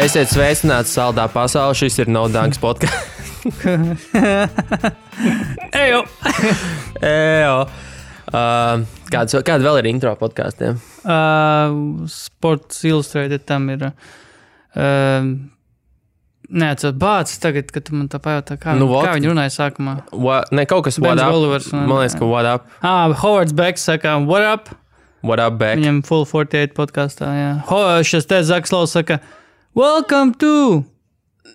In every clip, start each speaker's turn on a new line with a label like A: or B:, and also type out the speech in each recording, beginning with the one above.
A: Esiet sveicināti saldā pasaulē, šis ir No Dunks podcasts.
B: Ejo!
A: Kāda vēl ir intro podkāstiem?
B: Sports Illustrated tam ir. Neatceros, bācis tagad, kad tu man tā pajautā, kā viņi runāja sākumā.
A: Ne, kaut kas what up.
B: Olivers,
A: man liekas, ka what up.
B: Howards Becks saka, what up?
A: What up, Beck?
B: Viņam Full 48 podkāstā, jā. Šis te Zakslavs saka, welcome to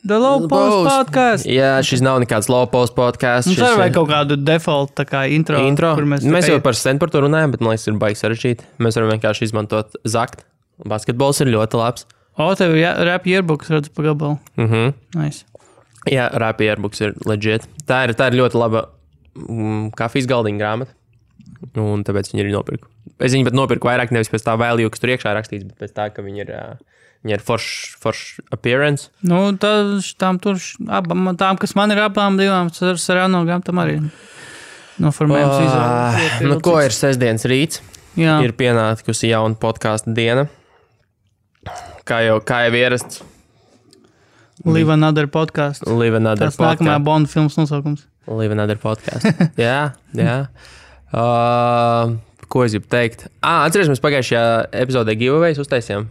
B: the Low Post podcast.
A: Jā, šis nav nekāds Low Post podcasts.
B: Mums arī vajag kaut kādu default tā kā intro.
A: Mēs jau par sen par to runājam, bet man liekas, ir baigi sarežģīti. Mēs varam vienkārši izmantot zakt. Basketbols ir ļoti labs.
B: Tev ir rap yearbooks, redzu pa gabalu. Nice.
A: Jā, rap yearbooks ir legit. Tā ir ļoti laba kafijas galdiņa grāmata. Un tāpēc viņi ir nopirku. Es viņu pat nopirku vairāk nevis pēc tā value, kas tur iekšā rakstīts, bet pēc tā, ka viņi ir forš appearance.
B: Nu, tām, kas man ir abām divām, Sarano grāmatām arī noformējums izvēlēt.
A: Nu, ko ir sestdienas rīts?
B: Jā.
A: Ir pienākusi jauna podkāsta diena. Kā jau ierasts.
B: Live Another podcast.
A: Live Another
B: podcast. Tas nākamā Bond filmas nosaukums.
A: Live Another podcast. Jā. Ko es gribu teikt? Atceries, mēs pagājušajā epizodē giveaways uztaisījām.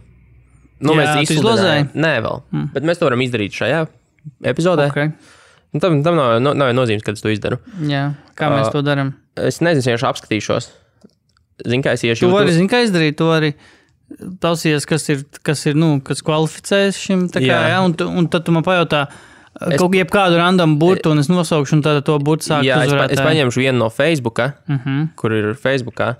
A: Mēs izsludinājām. Nē, vēl. Bet mēs to varam izdarīt šajā epizodē.
B: Okay.
A: Tam nav nozīmes, kad es to izdaru.
B: Jā. Kā mēs to darām?
A: Es nezinu, vienkārši apskatīšos. Zinu, kā es iešu.
B: Tu vari, kā izdarīt, tu arī tausies, kas kvalificēs šim. Tā kā, jā. Un tad tu man pajautā, kaut jebkādu random burtu, un es nosaukšu, un tad to burtu sāktu uzvarēt.
A: Es paņemšu vienu no Facebooka, kur ir Facebookā.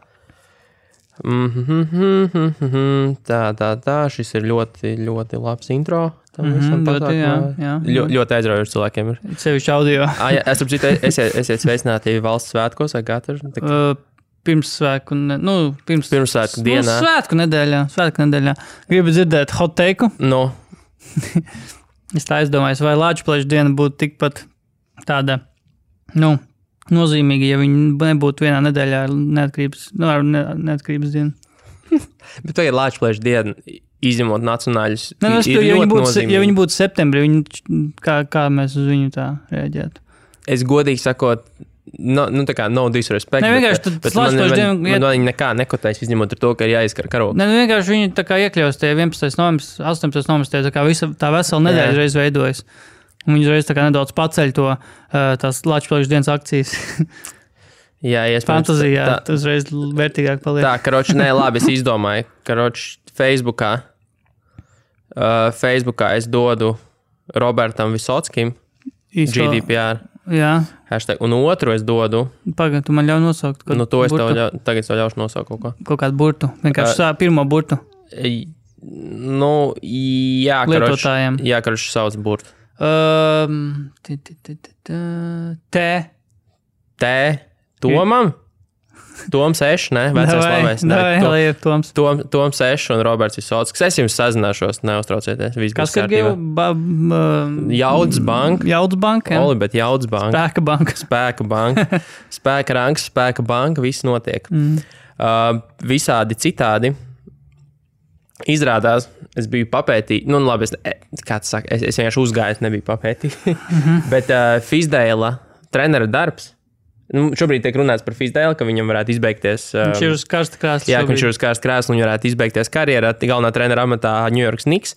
A: Tā, šis ir ļoti, ļoti labs intro. Ļoti aizraujoši cilvēkiem ir.
B: Sevišķi audio.
A: Esiet sveicināti valsts svētkos, vai katru?
B: Pirmsvētku
A: dienā.
B: Svētku nedēļā. Gribu dzirdēt hot take-u?
A: No.
B: Es tā aizdomājos, vai Lāčplēša diena būtu tikpat tāda, nozīmīga, ja viņi nebūtu vienā nedēļā neatkarības diena.
A: Bet tagad Lāčplēša diena, izņemot nacionāļus,
B: ja viņi būtu septembrī, kā mēs uz viņu tā reaģētu?
A: Es godīgi sakot, tā kā no disrespect, bet man viņi nekā nekotēs, izņemot ar to, ka ir jāizkar karogu.
B: Vienkārši viņi tā kā iekļaus tie 11. novembris, 18. novembris, tā kā tā vesela nedēļa reiz veidojas. Un viņi reiz tā kā nedaudz paceļ tās Lāčplēša dienas akcijas.
A: Jā,
B: fantazijā, tas reiz vērtīgāk paliek.
A: Tā, karoči, labi, es izdomāju, karoči, Facebookā es dodu Robertam Visockim GDPR.
B: Jā.
A: Hashtag, un otru es dodu.
B: Pagaid, tu man ļauj nosaukt.
A: To es tagad tev ļaušu nosaukt kaut ko.
B: Kaut kādu burtu. Vienkārši pirmo burtu.
A: Jā,
B: lietotājiem.
A: Jā, karoči sauc burtu. Tomam? Toms Eš, ne? Vecais labais. Toms Eš un Roberts Visocks. Es jums sazināšos, neuztraucieties.
B: Kas ir Gīva?
A: Jaudas banka.
B: Jaudas banka, jā.
A: Olibet Jaudas banka. Spēka banka. Spēka rangs, spēka banka, viss notiek. Visādi citādi. Izrādās, es biju papētīt, labi, es vienkārši uzgāju, nebiju papētīt. Bet Fizdēla trenera darbs. Šobrīd tiek runāts par Fizdēlu, ka viņam varētu izbeigties.
B: Viņš ir uz karsta krēsla.
A: Jā, viņš ir uz karsta krēsla un varētu izbeigties karjerā galvenā trenera amatā New York Knicks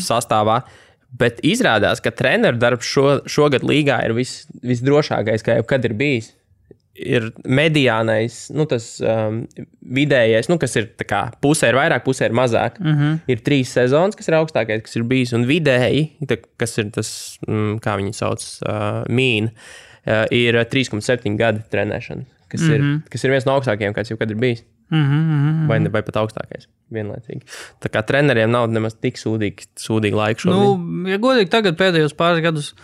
A: sastāvā. Bet izrādās, ka treneru darbs šogad līgā ir visdrošākais, kā jebkad ir bijis. Ir mediānais, tas vidējais, kas ir tā kā pusē ir vairāk, pusē ir mazāk. Ir 3 sezonas, kas ir augstākais, kas ir bijis, un vidēji, kas ir tas, kā viņi sauc, ir 3,7 gadi trenēšana, kas ir viens no augstākajiem, kāds jau kad ir bijis. Vai pat augstākais, vienlaicīgi. Tā kā treneriem nav nemaz tik sūdīgi laika šobrīd.
B: Ja godīgi tagad pēdējos pāris gadus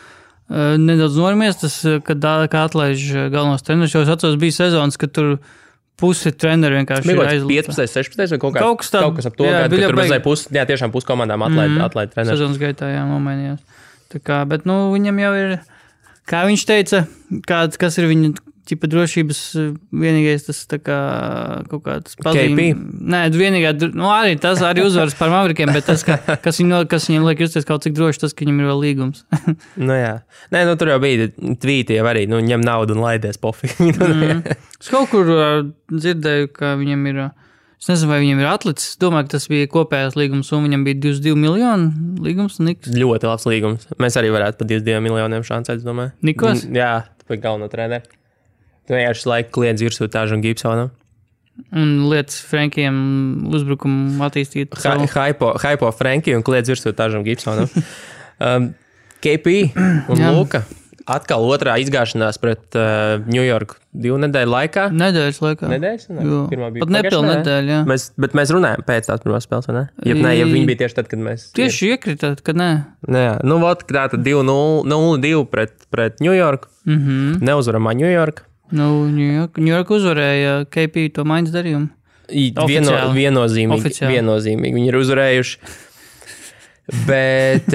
B: nedaudz norimies, tas, kad atlaiž galvenos treneris, jo es atceros, bija sezonas, kad tur pusi treneri vienkārši ir aizlūta.
A: 15, 16 vai kaut kas ap to, kad tur mazai tiešām pusi komandām atlaid treneri.
B: Sezonas gaitā, jā, nomainījās. Tā kā, bet, viņam jau ir, kā viņš teica, kas ir viņa ķipa drošības vienīgais tas tā kā kaut kāds pazīme.
A: KP?
B: Nē, vienīgā, arī tas arī uzvaras par Maverikiem, bet tas, kas viņam liek justies kaut cik droši, tas, ka viņam ir vēl līgums.
A: Jā. Nē, tur jau bija tvīti jau arī, ņem naudu un laidies pofīgi.
B: Es kaut kur dzirdēju, ka viņam ir, es nezinu, vai viņam ir atlicis, domāju, ka tas bija kopējās līgums, un viņam bija 22 miljonu līgums. Niks.
A: Ļoti labs līgums. Mēs arī varētu pa 22 miljoniem šansēt, domāju.
B: Nikos?
A: Jā, tu biji galveno treneri. Tu vienkārši laiku kliedz virsū tāžu un Gibsonu.
B: Un lietas Frankiem uzbrukumu attīstīt.
A: Hypo Frankiju un kliedz virsū tāžu un Gibsonu. KP un Luka. Atkal otrā izgāšanās pret New York 2 nedēļu laikā.
B: Nedēļas laikā.
A: Nedēļas?
B: Pirmā bija pat nepilna nedēļa, jā.
A: Bet mēs runājam pēc tās pirmās spēles, vai ne? Ja viņi bija tieši tad, kad mēs...
B: Tieši iekritāt, kad nē.
A: Jā, tātad 0-2 pret New York. Neuzvaramā New York.
B: New York uzvarēja KP to maiņas darījumu.
A: Viennozīmīgi. Viņi ir uzvarējuši. Bet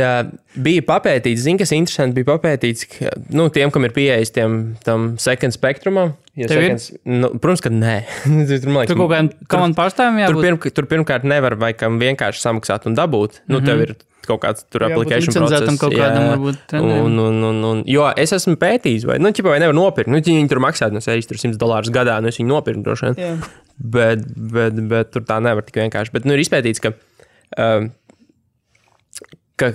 A: bija papētīts, kas interesanti, bija papētīts, ka, tiem, kam ir pieejas tam second spektrumam, protams, ka nē.
B: Tur kaut kādiem komandu pārstāvjiem jābūt?
A: Tur pirmkārt nevar vai kam vienkārši samaksāt un dabūt. Tev ir kaut kāds tur application process.
B: Kaut kādam varbūt
A: treneriem. Jo es esmu pētījis, vai nevar nopirkt. Viņi tur maksāt no $100 gadā, es viņu nopirku droši vien. Bet tur tā nevar tik vienkārši. Bet ir izpētīts, ka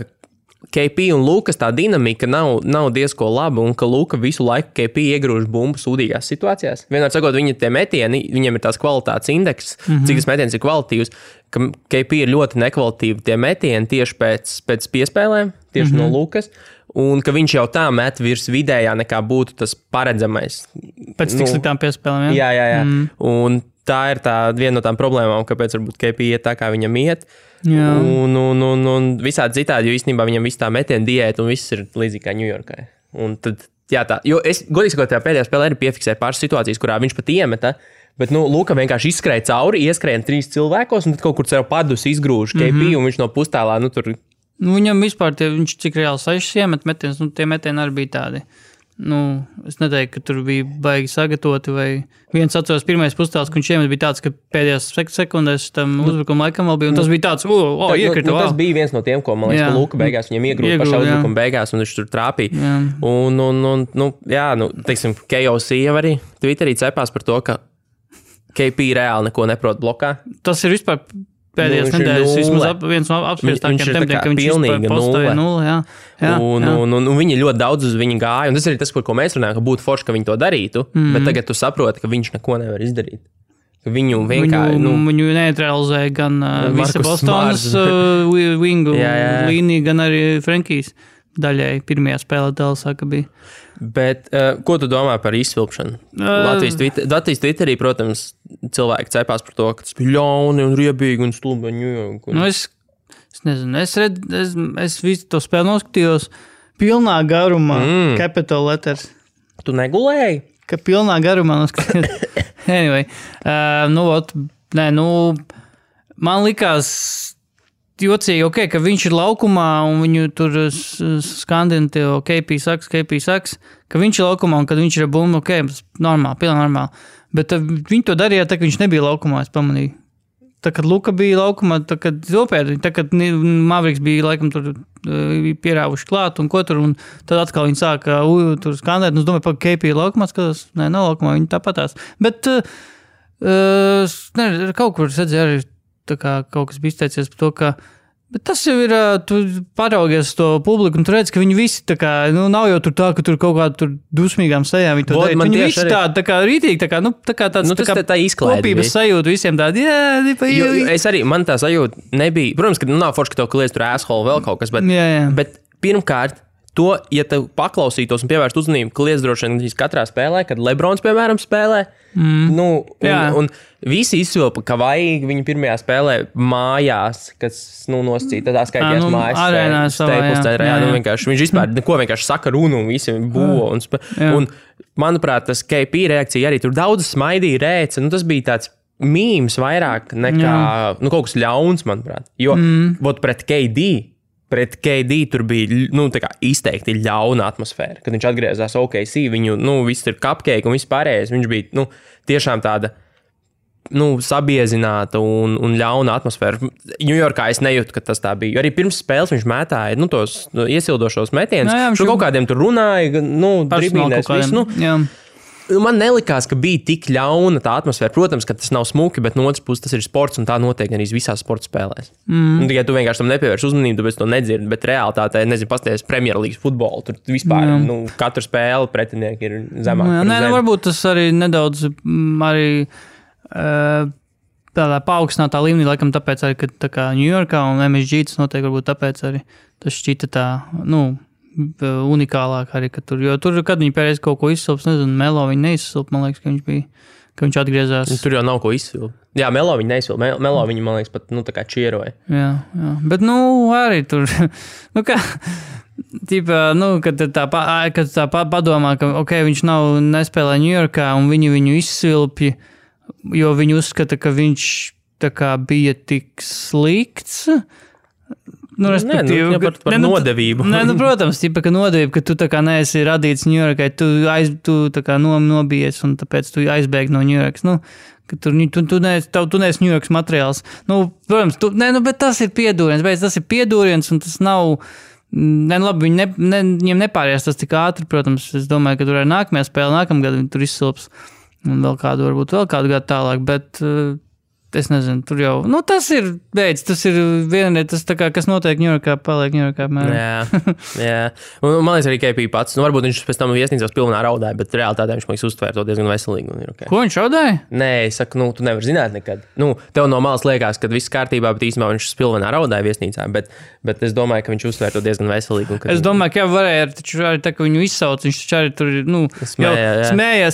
A: KP un Lukas tā dinamika nav diezko laba, un ka Luka visu laiku KP iegrūž bumbu sūdīgās situācijās. Vienmēr sakot, viņa tie metieni, viņiem ir tās kvalitātes indeks, cik tas metiens ir kvalitatīvs, ka KP ir ļoti nekvalitīvi tie metieni tieši pēc piespēlēm, tieši no Lukas, un ka viņš jau tā met virs vidējā nekā būtu tas paredzamais.
B: Pēc tik sliktām piespēlēm, jā?
A: Jā. Un tā ir viena no tām problēmām, kāpēc varbūt KP iet tā, kā viņam iet. Un visādi citādi, jo īstenībā viņam viss tā metiena diēta un viss ir līdzīgi kā Ņujorkai. Un tad, jo es, godīgi sakot, tajā pēdējā spēlē arī piefiksēju pāris situācijas, kurā viņš pat iemeta, bet, Luka vienkārši izskrēja cauri, ieskrēja 3 cilvēkos, un tad kaut kur sev padus izgrūž KP, un viņš no pustēlā, tur...
B: Viņam vispār, viņš cik reāli 6 iemet metienus, tie metieni arī bija tādi. Es neteiktu, ka tur bija baigi sagatavoti, vai viens atceros pirmais pustēls, ka viņš iemet bija tāds, ka pēdējās sekundēs tam uzbrukuma laikam vēl bija, un tas bija tāds, iekrita.
A: Tas bija viens no tiem, ko, man liekas, ka Luka beigās viņam iegrūda pašā uzbrukuma beigās, un viņš tur trāpīja. Teiksim, KOC jau arī Twitterī cepās par to, ka KP reāli neko neprot blokā.
B: Tas ir vispār pēdējās nedēļas vismaz viens no apspriestākiem tematiem, ka viņš vispār postoja 0.
A: Un viņi ļoti daudz uz viņu gāja, un tas ir tas, par ko mēs runājam, ka būtu forši, ka viņi to darītu, bet tagad tu saproti, ka viņš neko nevar izdarīt. Viņu vienkārši...
B: Viņu neutralizēja gan visa Bostonas wingu līnija, gan arī Frankijs daļai pirmajā spēlē Dallasā, ka bija.
A: Bet ko tu domā par izsvilpšanu? Latvijas Twitterī, protams, cilvēki cepās par to, ka tas bija ļauni un riebīgi un stulbi.
B: Es nezinu, es visu to spēli noskatījos pilnā garumā, capital letters.
A: Tu negulēji?
B: Ka pilnā garumā noskatījos. Anyway, man likās jocīgi, ka viņš ir laukumā un viņu tur skandina tev, KP saks, ka viņš ir laukumā un kad viņš ir bumba, normāli, pilnīgi normāli. Bet viņi to darīja tā, ka viņš nebija laukumā, es pamanīju. Tā, kad Luka bija laukumā, tā, kad Maveriks bija laikam tur pierāvuši klāt un ko tur, un tad atkal viņi sāka tur skandēt, un es domāju, ka KP ir laukumā, skatās, nav laukumā, viņi tāpatās. Bet kaut kur es redzēju arī tā kā kaut kas bija izteicies par to, ka bet tas jau ir, tu paraugies to publiku un tu redz, ka viņi visi tā kā, nav jau tur tā, ka tur kaut kādā tur dusmīgām sejām viņi to darīt. Viņi visi tā kā rītīgi, tā kā tāds
A: tā
B: kopības sajūta visiem tādi,
A: Es arī, man tā sajūta nebija, protams, ka nav forši, ka tev kliedz tur asshole vēl kaut kas, bet pirmkārt, to, ja tev paklausītos un pievērst uzmanību, kliedz droši vien katrā spēlē, kad Lebrons, piemēram, spēlē, un visi izsvilpa, ka vajag viņu pirmajā spēlē mājās, kas, nosacīja, tādā skaitījās mājas vienkārši, viņš vispār neko vienkārši saka runu un visi būvo. Un, manuprāt, tas KP reakcija arī tur daudz smaidīja rēca, tas bija tāds mīms vairāk nekā, kaut kas ļauns, manuprāt, jo, pret KD, pret KD tur bija izteikti ļauna atmosfēra. Kad viņš atgriezās OKC, viņu viss ir cupcake un viss pārējais. Viņš bija tiešām tāda sabiezināta un ļauna atmosfēra. Ņujorkā es nejūtu, ka tas tā bija. Arī pirms spēles viņš mētāja tos iesildošos metienus. Kaut kādiem tur runāja, dribīnēs visu. Man nelikās, ka bija tik ļauna tā atmosfēra. Protams, ka tas nav smuki, bet no otras puses tas ir sports un tā notiek arī visās sporta spēlēs. Tikai tu vienkārši tam nepievērš uzmanību, tāpēc to nedzirdi, bet realitātē, pasties Premjerlīgas futbolu, tur vispār katru spēli pretinieki ir zemāk.
B: Varbūt tas arī nedaudz tādā paaugstinātā līmenī, laikam tāpēc arī, ka tā kā Ņujorkā un MSG tas notiek, varbūt tāpēc arī tas šķita tā, unikālāk arī, ka tur, jo tur, kad viņi pēreiz kaut ko izsilps, nezinu, Melo viņi neizsilp, man liekas, ka viņš atgriezās.
A: Tur jau nav ko izsilpt. Jā, Melo viņi neizsilp, Melo viņi, man liekas, pat, tā kā čieroja.
B: Jā, bet, arī tur, kad tā padomā, ka, viņš nespēlē Ņujorkā un viņi izsilpja, jo viņi uzskata, ka viņš tā kā bija tik slikts.
A: Respektīvi, par nodevību.
B: Protams, ka nodevība, ka tu tā kā neesi radīts Ņujorkai, tu tā kā nobijies un tāpēc tu aizbēgi no Ņujorkas. Ka tu neesi Ņujorkas materiāls. Protams, bet tas ir piedūriens, un tas nav. Labi, viņiem nepāries tas tik ātri, protams. Es domāju, ka tur ir nākamajā spēle, nākamgad viņi tur izsilps. Un varbūt vēl kādu gadu tālāk, bet es nezinu, tur jau, tas ir veids, tas ir vienreiz, tas tā kā, kas notiek Ņujorkā, paliek Ņujorkā.
A: Jā. Un man liekas arī KP pats, varbūt viņš pēc tam viesnīcās pilnā raudāja, bet realitātē viņš man liekas uztvēra to diezgan veselīgi. Un ir okay.
B: Ko viņš raudāja?
A: Nē, es saku, tu nevari zināt nekad. Tev no malas liekas, ka viss kārtībā, bet īstenībā viņš pilnā raudāja viesnīcā, bet es domāju, ka viņš uztvēra to diezgan veselīgi.
B: Es domāju, ka varēja, taču arī tā, ka viņu izsauc, viņš taču arī tur,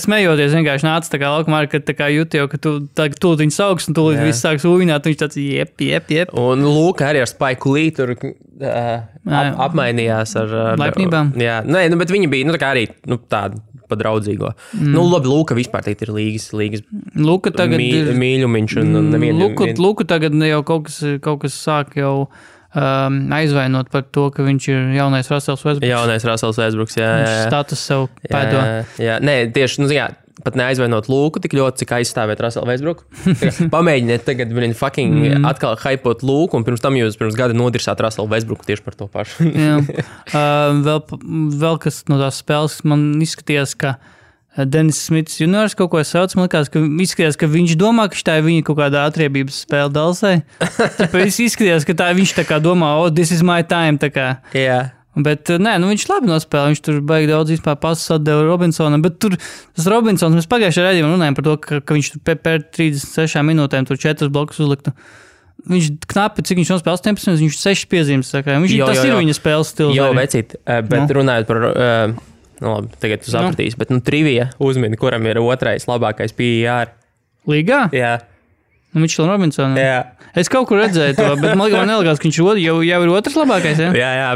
B: smējoties vienkārši nāca tā kā laukumā, ka tā kā jūti jau, ka tu viņu sauks un tu viss sāks uvināt, viņš tāds jep.
A: Un Lūka arī ar Spike Lee tur apmainījās ar
B: laipnībām.
A: Jā, bet viņi bija, tā kā arī tāda pa draudzīgo. Labi, Lūka vispār teikt ir līgas
B: Lūka tagad
A: mīļumiņš un nevienu.
B: Lūka tagad jau kaut kas sāk jau aizvainot par to, ka viņš ir jaunais Russells
A: Westbrooks, jā.
B: Status sev pēdo.
A: Jā, nē, tieši, pat neaizvainot Lūku tik ļoti, cik aizstāvēt Russellu Westbrooku. Pamēģiniet tagad atkal hypot Lūku, un pirms tam jūs pirms gada nodirsāt Russellu Westbrooku tieši par to pašu.
B: Jā. Vēl kas no tās spēles man izskatījās, ka Dennis Smits juniors kaut ko sauc, man izskatījās, ka viņš domā, ka tā ir viņa kaut kādā atriebības spēle Dalsai. Tāpēc izskatījās, ka viņš tā kā domā, this is my time, tā kā.
A: Jā.
B: Bet viņš labi nospēlē, viņš tur baigi daudz vispār pasus atdeva Robinsonam, bet tur tas Robinsons, mēs pagājušajā redzījumā runājām par to, ka viņš tur pēc 36 minūtēm tur 4 blokus uzliktu. Viņš knapi, cik viņš nospēlē 18, viņš 6 piezīmes, saka. Tas ir viņa spēles stils.
A: Jo, vecīt, bet runājot par, labi, tagad tu sapratīsi, bet trivija uzmini, kuram ir otrais labākais PER.
B: Līgā?
A: Jā.
B: Mitchell Robinsonam.
A: Jā.
B: Es kaut kur redzēju to, bet man nelikās, ka viņš jau ir otrs labākais, ja?
A: Jā.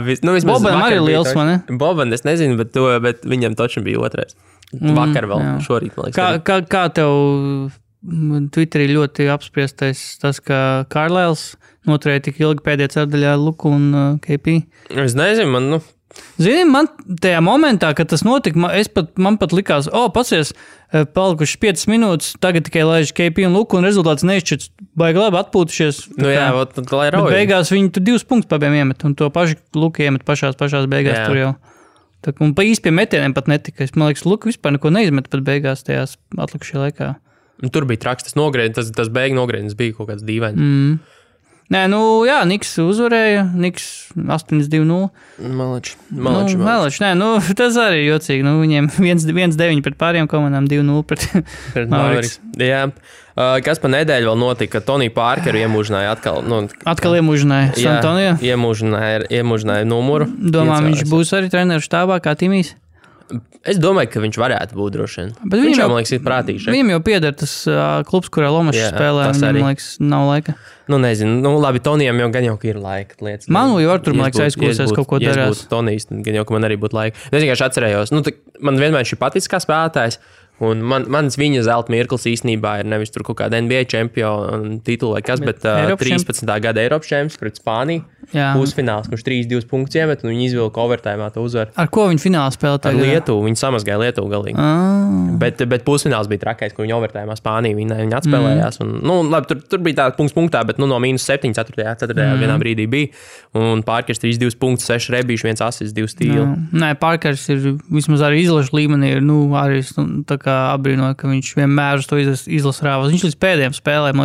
B: Bobam arī liels, man, ne?
A: Bobam, es nezinu, bet viņam točam bija otrais. Vakar vēl, šorīt, man liekas.
B: Kā tev Twitterī ļoti apspriestais tas, ka Carlisles noturēja tik ilgi pēdējā ceturdaļā Luku un KP?
A: Es nezinu, man,
B: Zini, man tajā momentā, kad tas notika, man pat likās, pasies, palikuši 5 minūtes, tagad tikai laiž KP un Luku, un rezultāts neizšķirts, baigi labi atpūtušies.
A: Jā, lai rauj.
B: Bet beigās viņi tur 2 punktus pabiem iemet, un to pašu Luku iemet pašās beigās tur jau. Un pa īsti pie metieniem pat netika. Man liekas, Luku vispār neko neizmet pat beigās tajās atlikušajā laikā.
A: Tur bija traks, tas beigu nogrēdienis bija kaut kāds dīvaini.
B: Nē, Niks uzvarēja, Niks 8-2-0.
A: Malič.
B: Nē, tas arī jocīgi. Viņiem 1-9 pret pāriem komandām, 2-0 pret Mavericks.
A: Jā. Kas pa nedēļu vēl notika, Toniju Parkeru iemūžināja atkal.
B: Atkal iemūžināja Santonio?
A: Iemūžināja numuru.
B: Domā, viņš būs arī treneru štābā kā Timijs?
A: Es domāju, ka viņš varētu būt droši vien. Viņš jau, man liekas, ir prātīgs.
B: Viņam jau pieder tas klubs, kurā Lomašs spēlē. Viņam, man liekas, nav laika.
A: Nezinu. Labi, Tonijam jau gan jau ir laika.
B: Man jau tur, man liekas, aizkūsies kaut ko darās.
A: Ja es būtu Tonijs, tad gan jau, ka man arī būtu laika. Es vienkārši atcerējos. Man vienmēr šī patiks kā spēlētājs. Un mans viņa zelta mirklis īstenībā ir nevis tur kaut kāda NBA čempiona titula vai kas, bet 13. gada Eiropas čempions pret Spāniju. Pusfināls, kurš 3-2 punktus iemet, un viņi izvilka overtājumā to uzvaru.
B: Ar ko viņi finālā spēlēja?
A: Ar Lietuvu. Viņi samazgāja Lietuvu galīgi. Bet pusfināls bija trakais, kur viņi overtājumā Spāniju viņi atspēlējās. Un, labi, tur bija tā punktā, bet no -7, 4. vienā brīdī bija. Un Parkers 3-2 punktus, 6 rebīši, 1 asis, 2 stīli.
B: Nē, Parkers ir vismaz arī izlašu līmenī. Arī tā kā apbrīnoja, ka viņš vienmēr uz to izlasu rāvās. Viņš līdz pēdējiem spēlēm,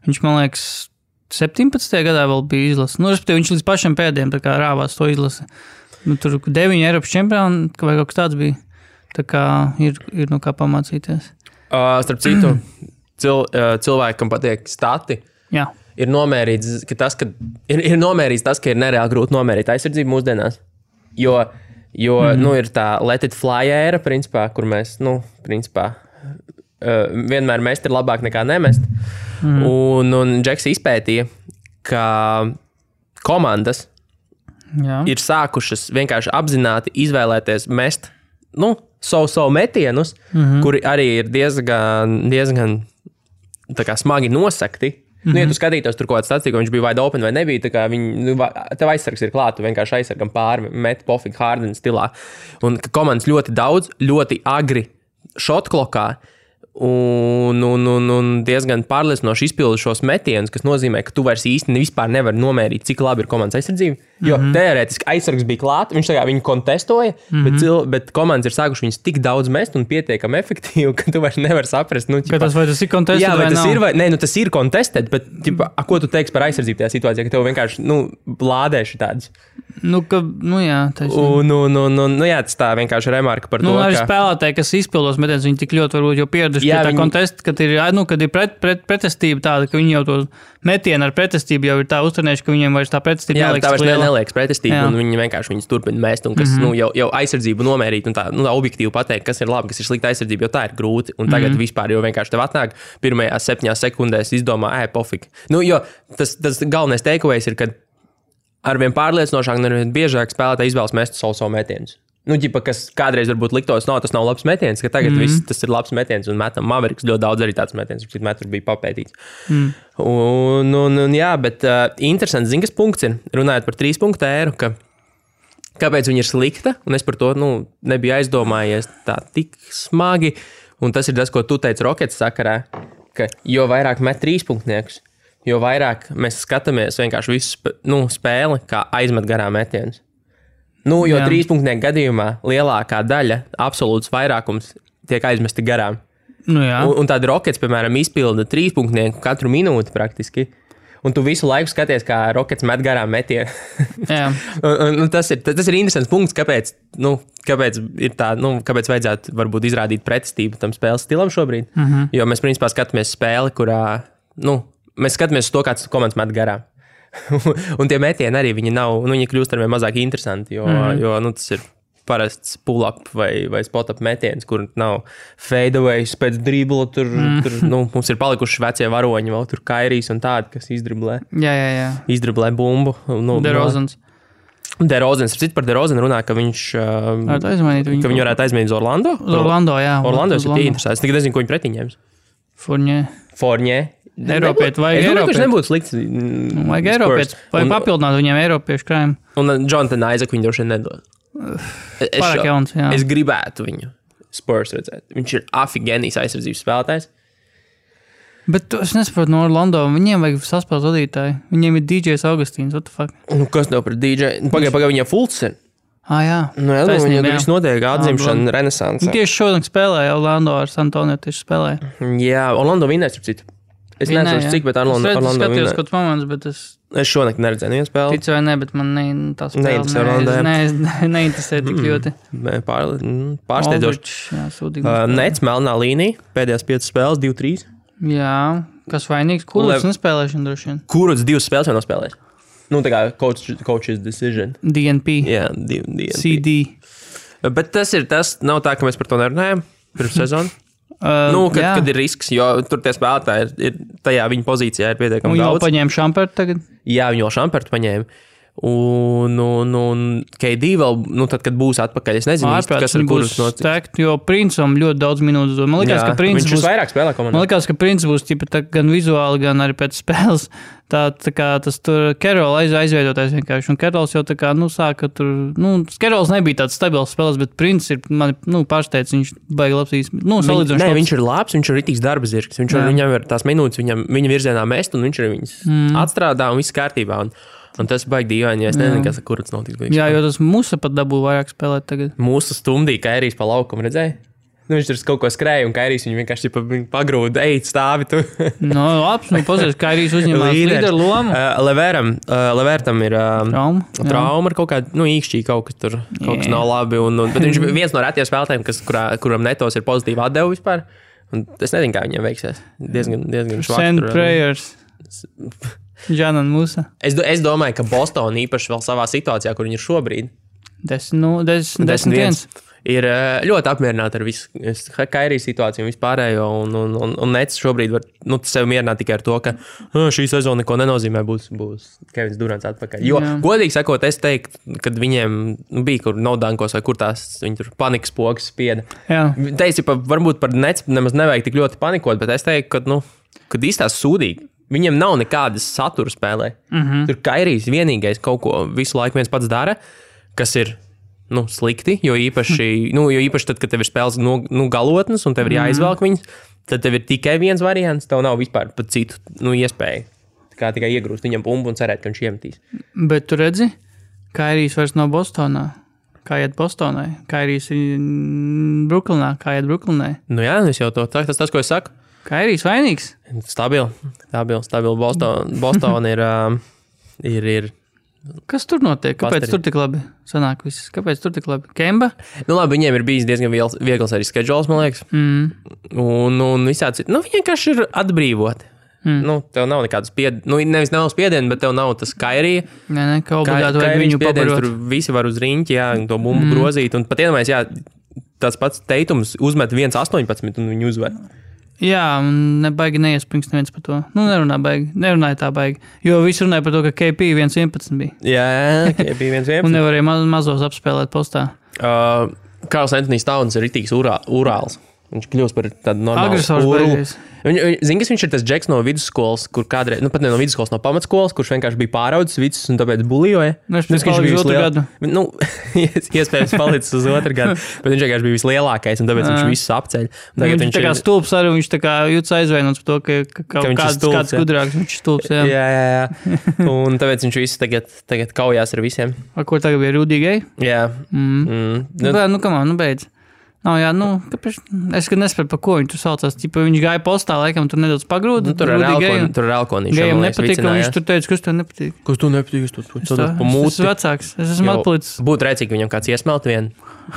B: viņš man liekas, 17. gadā vēl bija izlase. Respektīvi, viņš līdz pašiem pēdējiem tā kā rāvās to izlase. Tur 9 Eiropas čempioni vai kaut kas tāds bija. Tā kā ir no kā pamācīties.
A: Starp citu, cilvēkam patīk stati.
B: Jā.
A: Ir nomērīts, tas, ka ir nereāli grūti nomērīt aizsardzību mūsdienās. Jo ir tā let it fly ēra, principā, kur mēs, vienmēr mest ir labāk nekā nemest. Un Džeks izpētīja, ka komandas ir sākušas vienkārši apzināti izvēlēties mest, savu metienus, kuri arī ir diezgan tā kā smagi nosakti. Ja tu skatītos tur kaut kāds statistika, viņš bija wide open vai nebija, tā kā tev aizsargs ir klāt, tu vienkārši aizsargam pāri, met pofīgi Harden stilā. Un ka komandas ļoti daudz, ļoti agri shot klokā un diezgan pārliecinoši izpildu šos metienus, kas nozīmē, ka tu vairs īsti vispār nevari nomērīt, cik labi ir komandas aizsardzība. Jo teorētiski aizsargs bija klāt, viņš tā kā viņu kontestoja, bet komandas ir sākuši viņus tik daudz mest un pietiekami efektīvi, ka tu vairs nevari saprast.
B: Vai tas ir contested
A: jā, vai
B: tas
A: nav? Nē, tas ir contested, bet ko tu teiksi par aizsardzību tajā situācijā, ka tev vienkārši lādēši tāds?
B: Jā,
A: jā, tas tā vienkārši remarka par to,
B: arī spēlētāji, kas izpildos metienus, viņi tik ļoti varbūt jau pieraduši pie tā kontesta, kad ir pretestība tāda, ka viņi jau to metienu ar pretestību jau ir tā uztrenējuši, ka viņiem vairs tā pretestība
A: neliekas. Jā, tā vairs neliekas pretestība, un viņi vienkārši viņus turpina mest, un kas jau aizsardzību nomērīt, un tā objektīvi pateikt, kas ir labi, kas ir slikta aizsardzība, jo tā ir grūti, un tagad vispār jau vienkārši tev atnāk pirmajās 7 sekundēs izdomā, pofīgi. Jo tas galvenais takeaways ir, ka arvien pārliecinošāk un arvien biežāk spēlētāji izvēlas mest savu metienus. Kas kādreiz varbūt liktos, tas nav labs metiens, ka tagad viss tas ir labs metiens un metam Mavericks ļoti daudz arī tāds metiens, cik metru bija papētīts. Jā, bet interesants, kas punkts ir, runājot par 3 punktu ēru, kāpēc viņa ir slikta, un es par to nebiju aizdomājies tā tik smagi, un tas ir tas, ko tu teici Rockets sakarā, ka jo vairāk met 3 punktniekus, jo vairāk mēs skatāmies vienkārši visu spēli, kā aizmet garām metienus. Jo 3 punktnieku gadījumā lielākā daļa, absolūts vairākums tiek aizmesti garām. Un tāda Rockets, piemēram, izpilda 3 punktnieku katru minūti praktiski. Un tu visu laiku skaties, kā Rockets met garām metienu. Tas ir interesants punkts, kāpēc ir tā, kāpēc vajadzētu varbūt izrādīt pretestību tam spēles stilam šobrīd. Jo mēs principā skatāmies spēli, kurā, mēs skatāmies uz to, kāds komandas met garām. Un tie metieni arī viņi kļūst arvien mazāk interesanti, jo tas ir parasts pull-up vai spot-up metiens, kur nav fadeaways pēc dribla, tur mums ir palikuši vecie varoņi, vēl tur Kairijs un tādi, kas izdriblē.
B: Jā.
A: Izdriblē bumbu.
B: DeRozans.
A: Par DeRozanu runā, ka viņš viņu varētu aizmainīt uz Orlando.
B: Orlando, jā.
A: Orlando ir interesants. Es nezinu, ko viņi pretī ņems. Fournier.
B: Eiropiet, vai
A: Eiropiet? Nebūtu slikts.
B: Vajag Eiropiet, vai papildināt viņiem Eiropiešu krājumu.
A: Un Jonathan Isaac viņu droši vien nedod.
B: Pārāk jauns, jā.
A: Es gribētu viņu Spurs redzēt. Viņš ir afigenijs aizsardzības spēlētājs.
B: Bet es nesaprotu no Orlando, viņiem vajag saspēles vadītāji. Viņiem ir DJs Augustīns, what the fuck?
A: Kas tev par DJ? Pagaid, viņiem Fultz ir.
B: Jā.
A: Viņam viss notiek atdzimšana renesanse.
B: Tieši šodien spēlēja Orlando ar San Antonio tieši spēlēja.
A: Jā, Orlando vinnēs, ap citu. Es nezinu, cik, bet Orlando vinnēs.
B: Es skatījos kaut moments, bet es
A: šonakt neredzēju vienu spēli.
B: Ticu vai ne, bet man tā spēle neinteresē tik ļoti.
A: Pārsteidzoši. Nets, melnā līnija, pēdējās 5 spēles, 2-3.
B: Jā, kas vainīgs? Kuruts nespēlēšana droši vien.
A: Kuruts 2 spēles jau nospēlēs. Tā kā coach's decision.
B: DNP.
A: Jā, DNP.
B: CD.
A: Bet tas nav tā, ka mēs par to nerunājam pirms sezonu. Kad ir risks, jo tur tie spēlētāji ir tajā viņa pozīcijā ir pietiekami daudz.
B: Viņi jau paņēma Šampertu tagad?
A: Jā, viņi jau Šampertu paņēma. Un KD vēl, tad, kad būs atpakaļ, es nezinu, kas ar kurus
B: notiks. Jo Princam ļoti daudz minūtes dod. Man liekas, ka Prince
A: būs vairāk spēlē komandā.
B: Man liekas, ka Prince būs gan vizuāli, gan arī pēc spēles. Tā kā tas tur Carroll aizveidotais vienkārši. Un Carrolls jau tā kā, sāka tur, Carrolls nebija tāds stabils spēlēs, bet Prince ir, pārsteidz, viņš baigi labs salīdzinoši.
A: Nē, viņš ir labs, viņš ir ritīgs darba zirgs. Viņam ir tās minūtes, viņa virzienā mest, un viņš ir viņas atstrādā un viss kārtībā. Un tas baigi dīvaini, ja es nezinu, kas ar kurats notiks.
B: Jā, jo tas Musa pat dabū vairāk spēlēt tagad.
A: Musa stundīja Kairijs pa laukumu, redzēji? Viņš tur kaut ko skrēja, un Kairijs viņu vienkārši pagrūda, ej, stāvi tu.
B: Labs, pazies, Kairijs uzņemās līderu lomu.
A: Levertam ir trauma ar kaut kādu, īkšķī kaut kas tur, kaut kas nav labi. Bet viņš ir viens no retiem spēlētājiem, kuram netos ir pozitīva atdeva vispār. Un es nezinu, kā viņiem veiksies. Diezgan švaks.
B: Send prayers. Džanan Musa.
A: Es domāju, ka Boston īpaši vēl savā situācijā, kur viņi ir šobrīd,
B: 10-1.
A: Ir ļoti apmierināti ar visu Kairijas situāciju un vispārējo, un Nets šobrīd var sev mierināt tikai ar to, ka šī sezona neko nenozīmē, būs Kevins Durants atpakaļ. Jo, godīgi sakot, es teiktu, kad viņiem bija kur naudankos vai kur tās viņi tur panikas pogas spieda. Teici, varbūt par Nets nemaz nevajag tik ļoti panikot, bet es teiktu, kad īstās sūdīgi. Viņiem nav nekādas satura spēlē. Tur Kairijs vienīgais kaut ko visu laiku viens pats dara, kas ir slikti, jo īpaši tad, kad tev ir spēles galotnes un tev ir jāizvelk viņas, tad tev ir tikai viens variants, tev nav vispār pat citu iespēju. Kā tikai iegrūst viņam bumbu un cerēt, ka viņš iemetīs.
B: Bet tu redzi, Kairijs vairs nav Bostonā. Kā iet Bostonai? Kairijs ir Brooklynā. Kā iet Brooklynai?
A: Jā, es jau to tas, ko es saku.
B: Kairijs vainīgs?
A: Stabil. Boston ir.
B: Kas tur notiek? Kāpēc tur tik labi sanāk viss? Kāpēc tur tik labi? Kemba?
A: Labi, viņiem ir bijis diezgan viegls arī schedules, man liekas. Un visādi. Viņi vienkārši ir atbrīvoti. Tev nav nekādas nevis nav spiedienu, bet tev nav tas Kairija.
B: Nē, kā obligāti vajag viņu pabarot.
A: Tur visi var uz riņķi, to bumbu grozīt. Un pat iedomājies, tāds pats Teitums uzmet 1.18 un viņu uzvar.
B: Jā, un nebaigi neiespringst neviens par to. Nerunāja tā baigi. Jo visi runāja par to, ka KP 1.11 bija.
A: Jā, KP 1.11.
B: Un nevarēja mazos apspēlēt postā.
A: Karls Antonijs Towns ir ritīgs urāls. Viņš kļūst par tādu normālu
B: agresors beigas.
A: Zini, kas viņš ir tas džeks no vidusskolas, kur kādreiz, pat ne no vidusskolas, no pamatskolas, kurš vienkārši bija pāraudzis visus un tāpēc bulijoja.
B: Viņš bija uz otru gadu.
A: Iespējams palicis uz otru gadu, bet viņš vienkārši bija vislielākais un tāpēc viņš visus apceļ.
B: Viņš tā kā stulbs arī, viņš tā kā jūtas aizvainots par to, ka kāds gudrāks, viņš ir stulbs.
A: Jā. Un tāpēc viņš visus tagad kaujās ar visiem.
B: Ko tagad bija Rudīgai?
A: Jā.
B: Beidz. Kāpēc? Es nespēju, par ko viņi tur saucās. Viņš gāja postā, laikam, tur nedaudz pagrūda.
A: Tur ir Elkonīša.
B: Gājam nepatīk, ka viņš tur teica, kas tev nepatīk.
A: Kas tev nepatīk? Es
B: esmu vecāks. Es esmu atpalicis.
A: Būtu rēcīgi, ka viņam kāds iesmelt vienu.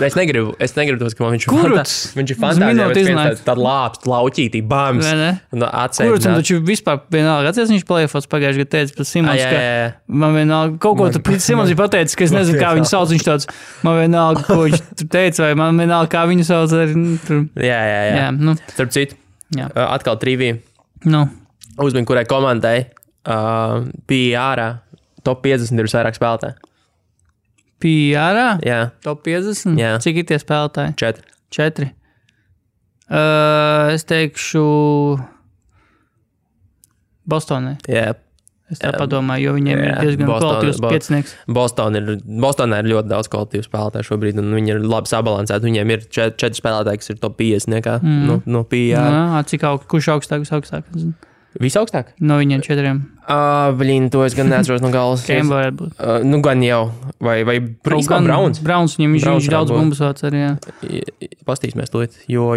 A: Es negribu tos, ka viņš
B: ir
A: fantāzija, bet tāda lāpst, lauķītī, bams. Un atsēd.
B: Kuruts, un taču vispār vienalga. Atceries, viņš plēfos pagājuši, kad teica par Simons, ka man vienalga, kaut ko tur Simons ir pateicis, ka es nezinu, kā viņu sauc. Viņš tāds, man vienalga, ko viņš tur teica, vai man vienalga, kā viņu sauc.
A: Jā. Starp citu, atkal trivija. Uzmini, kurai komandai bija ārā top 50 ir vairāk spēlētāji.
B: PR?
A: Jā.
B: Top 50?
A: Jā.
B: Cik ir tie spēlētāji?
A: 4.
B: Es teikšu Bostonai.
A: Jā.
B: Es tā padomāju, jo viņiem ir diezgan kvalitīvs piecinieks.
A: Bostonā ir ļoti daudz kvalitīvu spēlētāju šobrīd, un viņi ir labi sabalansēti. Viņiem ir 4 spēlētāji, kas ir top 50 no PR.
B: Kurš augstāk?
A: Visaugstāk?
B: No viņiem 4.
A: To es gan neatceros no galvas.
B: Kemba varētu būt.
A: Gan jau. Vai Browns?
B: Browns, viņš daudz bumbas vāc arī, jā.
A: Pastīsimies to. Jo.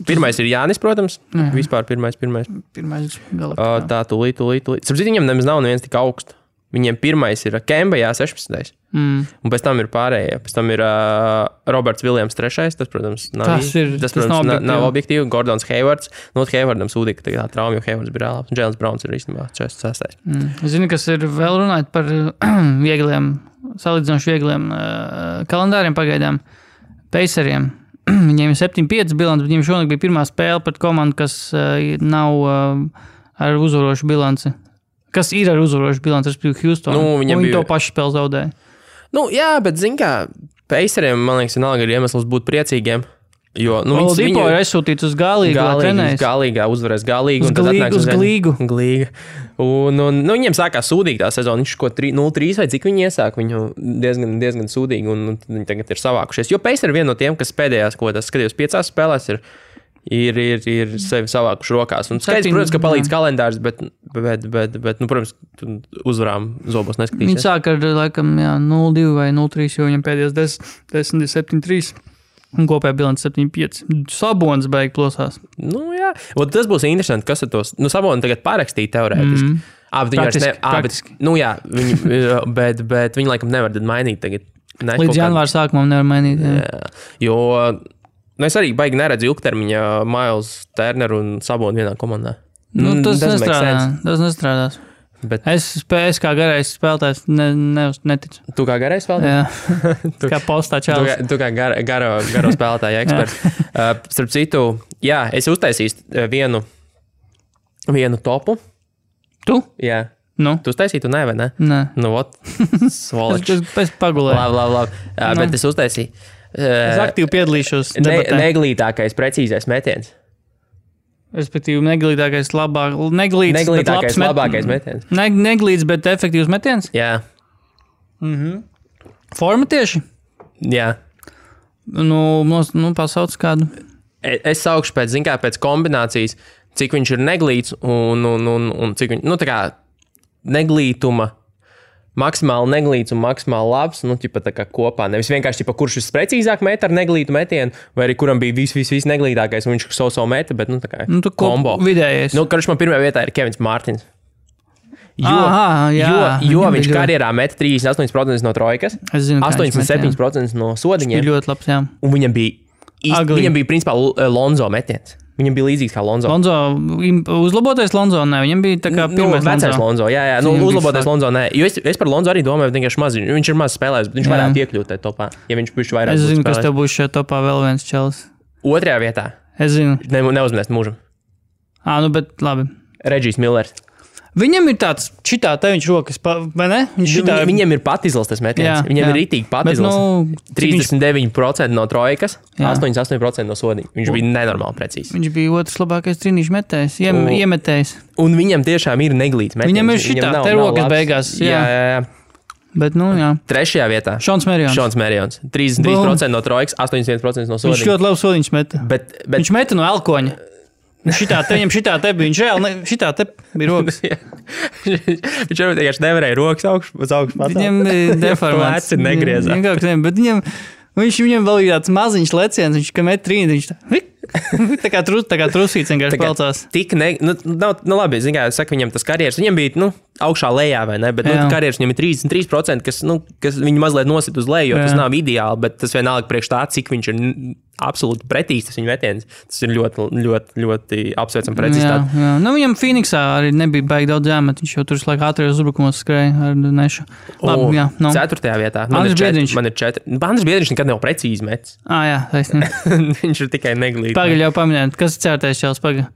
A: Pirmais ir Jānis, protams. Vispār pirmais.
B: Pirmais galā.
A: Tā, tūlīt. Starp citu, viņam nemaz nav neviens tik augsts. Viņiem pirmais ir Kemba, 16. Un pēc tam ir pārējie. Pēc tam ir Roberts Viljams 3. Tas, protams, nav objektīvi. Gordons Haywards. Haywardam sūdīja, ka tā trauma, jo Haywards bija reālāps. Un Jēlens Browns ir īstenībā 6.
B: Zini, kas ir vēl runājot par salīdzinoši viegliem kalendāriem pagaidām. Paceriem. Viņiem ir 7-5 bilants, bet viņiem šonakt bija pirmā spēle pret komandu, kas nav ar uzvarošu bilanci. kas ir ar uzvarošu bilanci, respektīvi Houston. Viņi to pašu spēli zaudēja.
A: Jā, bet zin kā, Paceriem, man liekas, vienalga ir iemesls būt priecīgiem. Jo,
B: Oladipo ir aizsūtīts uz
A: Galīgā, uzvarēs Galīgu.
B: Uz Glīgu.
A: Un viņiem sākās sūdīgi tā sezona. Viņš ko 0-3 vai cik viņi iesāk, viņu diezgan sūdīgi, un viņi tagad ir savākušies. Jo Paceri ir viena no tiem, kas pēdējās, ko tas skatījos 5 spēlēs, ir sevi savākuši rokās. Un skaidrs, protams, ka palīdz kalendārs, bet protams, uzvarām zobos neskatīsies.
B: Viņi sāk ar, laikam, 0-2 vai 0-3, jo viņam pēdējās 10-7-3. Un kopējā bilance 7-5. Sabonis beig plosās.
A: Jā. Tas būs interesanti, kas ar tos... Saboni tagad parakstīja teorētiski.
B: Praktiski.
A: Bet viņi laikam nevar tad mainīt tagad.
B: Līdz janvāra sākumam nevar mainīt.
A: Jā. Jo es arī baigi neredzu ilgtermiņā Miles Turner un Saboni vienā komandā.
B: Tas nestrādās. Bet es kā garais spēlētājs neticu.
A: Tu kā garais spēlētājs?
B: Jā, kā postā čēlis.
A: Tu kā garo spēlētāja eksperts. Starp citu, es uztaisīju vienu topu.
B: Tu?
A: Jā. Tu uztaisītu, vai ne?
B: Nē.
A: Svoličs.
B: Es pagulēju.
A: Labi. Bet es uztaisīju.
B: Es aktīvi piedalīšos debatē.
A: Neglītākais, precīzais metiens.
B: Respektīvi, neglītākais, labākais metiens. Neglīts, bet efektīvs metiens?
A: Jā.
B: Forma tieši?
A: Jā.
B: Pasauc kādu.
A: Es saukšu pēc kombinācijas, cik viņš ir neglīts un cik viņš, tā kā neglītuma, maksimāli neglīts un maksimāli labs, tā kā kopā. Nevis vienkārši, kurš precīzāk met ar neglītu metienu, vai arī kuram bija viss neglītākais, un viņš savu meta, bet, tā kā kombo.
B: Vidējais.
A: Karš man pirmajā vietā ir Kevins Mārtins. Jo viņš karjerā met 38% no trojkas, 87% no sodiņiem.
B: Viņš bija ļoti labs, jā.
A: Un viņam bija principā Lonzo metiens. Viņam bija līdzīgs kā Lonzo.
B: Uzlabotais Lonzo, nē, viņam bija tā kā pirmais
A: vecais Lonzo. Jā, uzlabotais Lonzo, nē. Jo es par Lonzo arī domāju, vienkārši maz. Viņš ir maz spēlējis, bet viņš varētu iekļūt tajā topā, ja viņš bišķi vairāk
B: būtu spēlējis. Es zinu,
A: kas
B: tev būs šajā topā vēl viens čelis.
A: Otrajā vietā.
B: Es zinu.
A: Neuzminēs mūžam.
B: Bet labi.
A: Regijs Millers.
B: Viņam ir tāds, šitā te viņš rokas, vai ne?
A: Viņam ir pat izlastas metiens. Viņam ir ritīgi pat izlastas. 39% no trojkas, 88% no sodiņa. Viņš bija nenormāli precīzs.
B: Viņš bija otrs labākais trīnīšu metējs, iemetējs.
A: Un viņam tiešām ir neglīts metiens.
B: Viņam ir šitā, te rokas beigās. Jā. Bet, jā.
A: Trešajā vietā.
B: Šons Merions.
A: 33% no trojkas, 81% no sodiņa.
B: Viņš ļoti labi sodiņš meta. Viņš meta no elkoņa. Viņam šitā te bija, viņš reāli, šitā te bija rokas.
A: Viņš jau vienkārši nevarēja rokas uz augšu patāt.
B: Viņam bija deformāts.
A: Lēci negriezās.
B: Bet viņam vēl bija tāds maziņš leciens, viņš kā met trīni, viņš tā kā trusīts vienkārši pelcās.
A: Labi, zin kā, saka, viņam tas karjeras, viņam bija, augšā lejā, vai ne, bet karjeras viņam ir 33%, kas viņu mazliet nosit uz leju, jo tas nav ideāli, bet tas vienalga priekš tā, cik viņš ir absolūti pretīgs, tas viņa metiens. Tas ir ļoti, ļoti, ļoti apsveicam precizitāti.
B: Jā. Viņam Phoenixā arī nebija baigi daudz jāmet, viņš jau tur laikā ātrajos uzbrukumos skrēja ar nešu. Labi, jā.
A: 4. vietā.
B: Andris Biedriņš.
A: Man ir 4. Andris Biedriņš nekad nav precīzi metis.
B: Jā, taisnība.
A: Viņš ir tikai neglīts.
B: Pagaļ jau paminēt, kas ir 4. čels, pagaļ?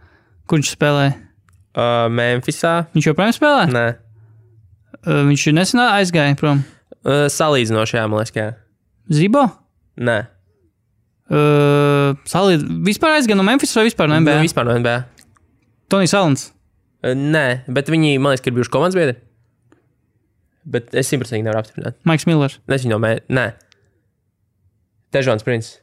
B: Kur viņš spēlēja?
A: Memphisā.
B: Viņš joprojām spēlē?
A: Nē.
B: Viņš nesen aizgāja prom?
A: Salīdzinoši, jā, man liekas, jā.
B: Zibo?
A: Nē.
B: Vispār aizgāja no Memphis vai vispār no NBA?
A: Vispār no NBA.
B: Tonijs Alans?
A: Nē, bet viņi, man liekas, ka ir bijuši komandas biedri. Bet es 100% nevaru apstiprināt.
B: Maiks Millers?
A: Nē. Težons Prince.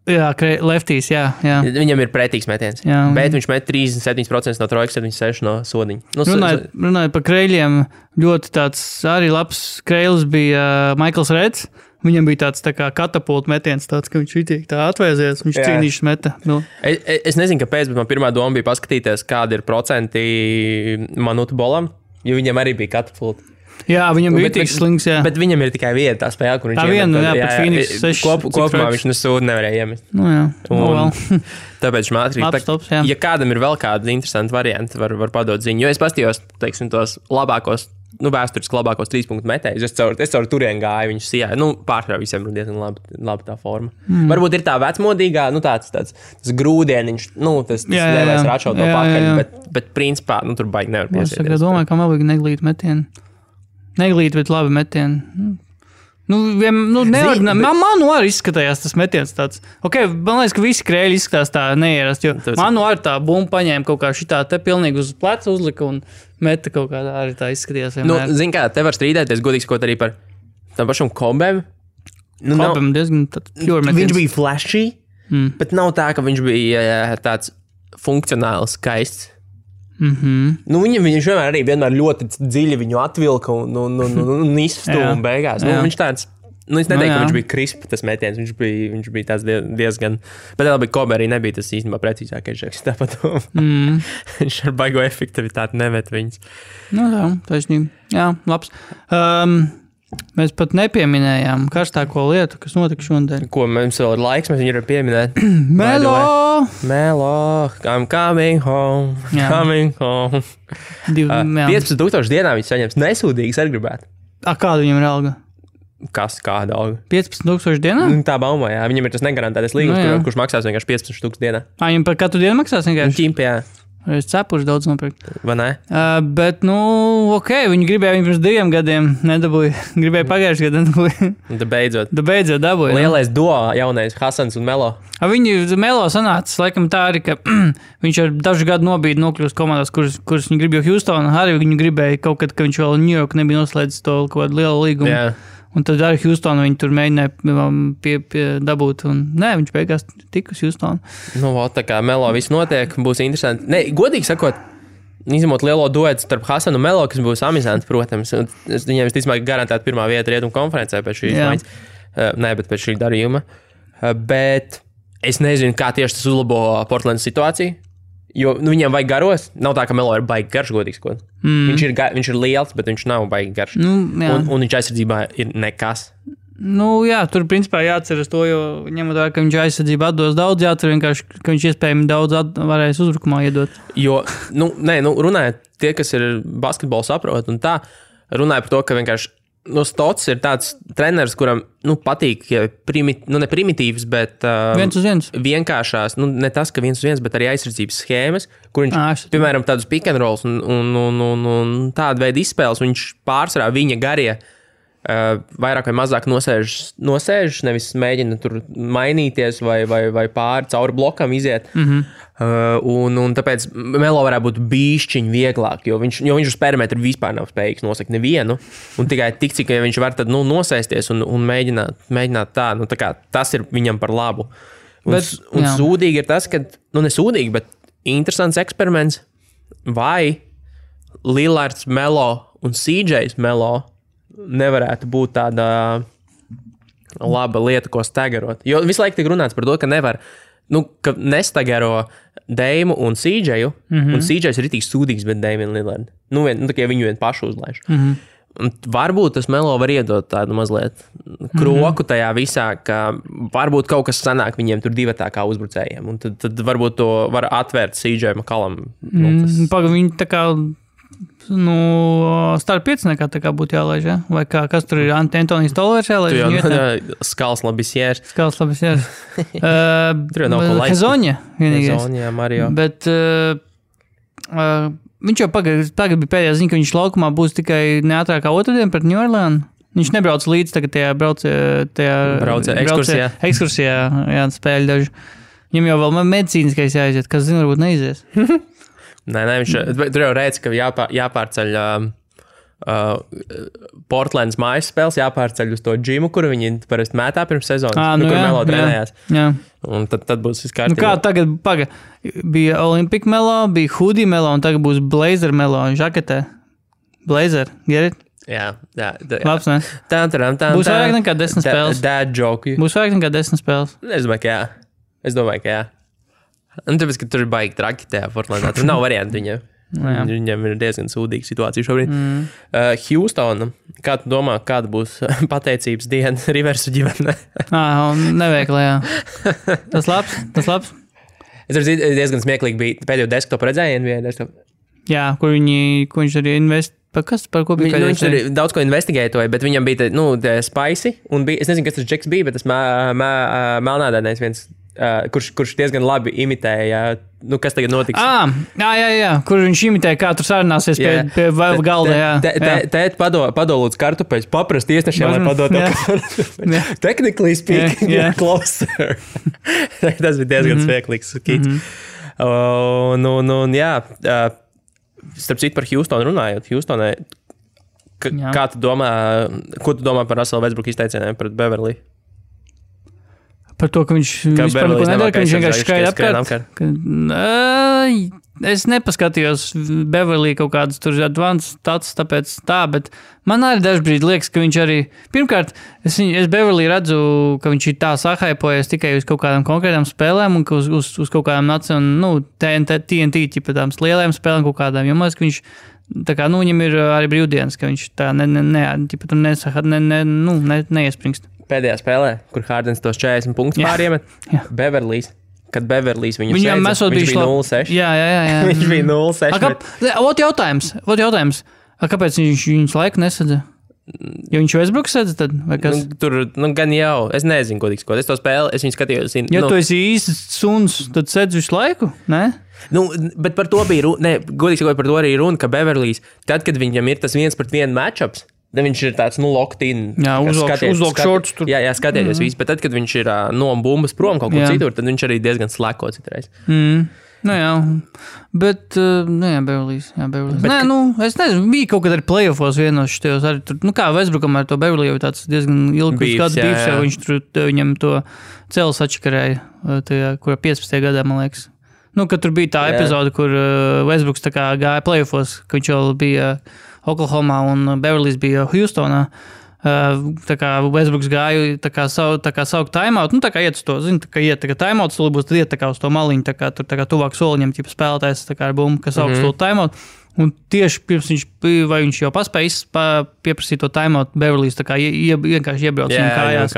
B: Jā, leftīs, jā.
A: Viņam ir pretīgs metiens. Jā, bet viņš met 37% no trojkas, 76% no sodiņa.
B: Runājot par kreļiem, ļoti tāds arī labs kreilis bija Maikls Reds. Viņam bija tāds tā kā katapulta metiens, tāds, ka viņš itīgi tā atvēzies, viņš cīnīšas meta.
A: Es nezinu, kāpēc, bet man pirmā doma bija paskatīties, kādi ir procenti Manutu Bolam, jo viņam arī bija katapulta.
B: Jā, viņam bija tik slings, jā.
A: Bet viņam ir tikai viena tā spēle, kur viņš
B: pret Phoenix 6.
A: Kopumā viņš nesūdu nevarēja iemest. Tāpēc ātri. Ja kādam ir vēl kādi interesanti varianti, var padot ziņu. Jo es pastījos, teiksim, tos labākos vēsturiski labākos 3 punktu metējus. Es caur turienu gāju, viņš sijāja. Pārsvarā visiem ir diezgan labi tā forma. Varbūt ir tā vecmodīgā, tāds grūdieniņš, tas nevēs račaut to pakaļ, bet principā, tur baigi nevar piesieties.
B: Es domāju, ka man vajag neglīt metienu. Neglīt, bet labi metienu. Man arī izskatījās tas metiens tāds. Man liekas, ka visi krēļi izskatās tā neierast, jo man arī tā bumba paņēma kaut kā šitā te pilnīgi uz pleca uzlika un meta kaut kā arī tā izskatījās vienmēr.
A: Zin kā, te var strīdēties godīgi sakot arī par tam pašam Kobem.
B: Kobem diezgan pure metiens.
A: Viņš bija flashy, bet nav tā, ka viņš bija tāds funkcionāls, skaists. Viņš vienmēr ļoti dziļi viņu atvilka un izstūma beigās. Viņš tāds, es neteiktu, ka viņš bija krispa tas metiens, viņš bija tāds diezgan, bet labi, Kobe arī nebija tas īstenībā precīzākais žeks, tāpat viņš ar baigo efektivitāti nemet viņus.
B: Taisnība. Jā, labs. Mēs pat nepieminējām karstāko lietu, kas notika šodien.
A: Ko mums vēl ir laiks, mēs viņu varam pieminēt. Melo, I'm coming home, coming home. 15,000 dienā viņš saņems nesūdīgas arī gribētu.
B: Kāda viņam ir alga?
A: Kāda alga?
B: 15,000 dienā?
A: Tā baumā, jā. Viņam ir tas negarantētais līgums, kurš maksās vienkārši 15,000 dienā.
B: Viņam par katru dienu maksās vienkārši?
A: Ķimpi, jā.
B: Es cepuši daudz nopirkt.
A: Vai ne?
B: Bet, viņi gribēja viņu pirms 2 gadiem nedabūja. Gribēja pagājuši gadu nedabūja. Beidzot dabūja.
A: Lielais duo jaunais Hasans un Melo.
B: Viņi Melo sanācis, laikam tā arī, ka viņš ar dažu gadu nobīdi nokļūst komandās, kuras viņi grib, jo Houston arī viņu gribēja kaut kad, ka viņš vēl New York nebija noslēdzis to kaut kādu lielu līgumu.
A: Yeah.
B: Un tad arī Houston viņi tur mēģināja dabūt, un viņš beigās tika uz Houston.
A: Tā kā Melo viss notiek, būs interesanti. Godīgi sakot, izņemot lielo duetu starp Hasanu un Melo, kas būs amizanti, protams. Viņiem visticamāk garantēta pirmā vieta Rietumu konferencē pēc šīs maiņas. Bet pēc šī darījuma. Bet es nezinu, kā tieši tas uzlabo Portlandas situāciju. Jo viņiem vajag garos. Nav tā, ka Melo ir baigi garš, godīgi sakot. Viņš ir liels, bet viņš nav baigi garš. Un viņš aizsardzībā ir nekas.
B: Tur principā jāatceras to, jo ņemot vērā, ka viņš aizsardzībā atdos daudz, jāatcer vienkārši, ka viņš iespējami daudz varēs uzbrukumā iedot.
A: Jo, runājot, tie, kas ir basketbolu saprot un tā, runāja par to, ka vienkārši Stots ir tāds treneris, kuram patīk ne primitīvs, bet
B: viens uz viens.
A: Vienkāršās, ne tas, ka viens uz viens, bet arī aizsardzības schēmas, kur viņš, piemēram, tādus pick and rolls un tādu veidu izspēles, viņš pārsvarā viņa garie vairāk vai mazāk nosēžas, nevis mēģina tur mainīties vai pāri cauri blokam iziet. Un tāpēc Melo varētu būt bīšķiņ vieglāk, jo viņš uz perimetru vispār nav spējīgs nosakt nevienu. Un tikai tik, cik viņš var tad nosēsties un mēģināt tā. Tā kā tas ir viņam par labu. Un sūdīgi ir tas, ka, nesūdīgi, bet interesants eksperiments, vai Lillards Melo un CJs Melo nevarētu būt tāda laba lieta, ko stagarot. Jo visu laiku tiek runāts par to, ka nevar, ka nestagaro Deimu un CJu, un CJs ir ritīgi sūdīgs, bet Deimu un Lillardu. Tikai viņu vien pašu uzlaiž. Un varbūt tas Melo var iedot tādu mazliet kroku tajā visā, ka varbūt kaut kas sanāk viņiem tur divatā kā uzbrucējiem, un tad varbūt to var atvērt CJ McCollum.
B: Viņi tā kā starp 5 nekā tā kā būtu jālaiž, ja? Vai kas tur ir Antonijs Tolvers jālaiž?
A: Skals Labisiers.
B: Tur jau nav ko laist. Hezoņa,
A: Mario.
B: Bet viņš jau tagad bija pēdējā ziņa, ka viņš laukumā būs tikai neatrākā otrdien pret New Orleans. Viņš nebrauc līdz tagad tajā ekskursijā, spēļ daži. Viņam jau vēl medicīniskais jāiziet, kas zina, varbūt neizies.
A: Nē, tur jau reiz, ka jāpārceļ Portlandas mājas spēles, jāpārceļ uz to džimu, kuru viņi parasti mētā pirms sezonas, kur Melo trenējās.
B: Jā.
A: Un tad būs viss kārtībā.
B: Kā tagad bija Olympic Melo, bija Hoodie Melo, un tagad būs Blazer Melo, žaketē. Blazer, get it?
A: Jā.
B: Labs, ne? Būs vairāk nekā 10 spēles.
A: Dad joke.
B: Būs vairāk nekā 10 spēles.
A: Es domāju, ka jā. Un tāpēc, ka tur ir baigi traki tajā Portlandā. Tur nav variantu viņam. Viņam ir diezgan sūdīga situācija šobrīd. Houstona, kā tu domā, kāda būs pateicības diena Riversu ģimenē?
B: Neveikli, jā. Tas labs.
A: Es diezgan smieklīgi bija pēdējo desktop redzēju NBA desktop.
B: Jā, kur viņš arī Par ko bija?
A: Viņš tur daudz ko investigētoja, bet viņam bija Spicy, un bija, es nezinu, kas tas Džeks bija, bet tas melnādainais viens, kurš diezgan labi imitēja, kas tagad notiks.
B: Jā, kur viņš imitēja, kā tur sarunāsies pie galda, jā.
A: Tēt padolūdz kartupeļus, paprast iesnešiem, lai padot. Technically speaking, closer. Tas bija diezgan smieklīgs skits. Jā, starp citu par Houstonu runājot. Houstonai, kā tu domā, ko tu domā par Russell Westbrook izteicieniem pret Beverly?
B: Par to, ka viņš vispār neko nedara, ka viņš vienkārši skraida apkārt. Es nepaskatījos Beverly kaut kādas tur advanced stats, tāpēc tā, bet man arī dažbrīd liekas, ka viņš arī, pirmkārt, es Beverly redzu, ka viņš ir tā sahaipojies tikai uz kaut kādām konkrētām spēlēm un uz kaut kādām TNT, ķipa tām lielajām spēlēm kaut kādām, jo man liekas, ka viņš, tā kā, viņam ir arī brīvdienas, ka viņš tā neiespringst.
A: Pēdējā spēlē, kur Hardens tos 40 punktus pāriemet, Kad Beverlīs viņu sēdza, viņš bija 0-6.
B: Jā.
A: Viņš bija 0-6.
B: Ot jautājums. Kāpēc viņš viņus laiku nesadza? Jo viņš Westbrooks sēdza tad? Vai kas?
A: Tur, gan jau. Es nezinu, ko tiks. Es to spēli, es viņu skatījos.
B: Ja tu esi īsts suns, tad sēdz visu laiku, ne?
A: Bet par to bija runa, godīgi sakot, par to arī runa, ka Beverlīs, tad, kad viņam ir tas 1-1 matchups, tad viņš ir tāds, locked in.
B: Jā, uzlok šorts tur.
A: Jā, skatieties visu, bet tad, kad viņš ir no bumbas prom kaut kur citur, tad viņš arī diezgan slēko citreiz.
B: Jā, bet, Beverlīs. Es nezinu, bija kaut kad arī playoffos vienos šitajos arī tur, kā Westbrookam ar to Beverly jau tāds diezgan ilgs kāds bīvs, jau viņš tur, viņam to celis atšakarēja, kurā 15. gadā, man liekas. Kad tur bija tā epizode, kur Westbrooks tā kā gāja playoffos, ka viņš jau bija Oklahomā un Beverlīs bija Houstonā. Tā kā Westbrooks gāja tā kā saukt timeout, tā kā iet uz to, iet tā kā timeout stuli būs, tad iet tā kā uz to maliņu, tā kā tur tā kā tuvāk soliņam, ķipa spēlētājs tā kā ar bumbu, kas saukt stuli timeout. Un tieši pirms viņš jau paspēja pieprasīt to timeout, Beverlīs tā kā vienkārši iebrauc viņam kājās.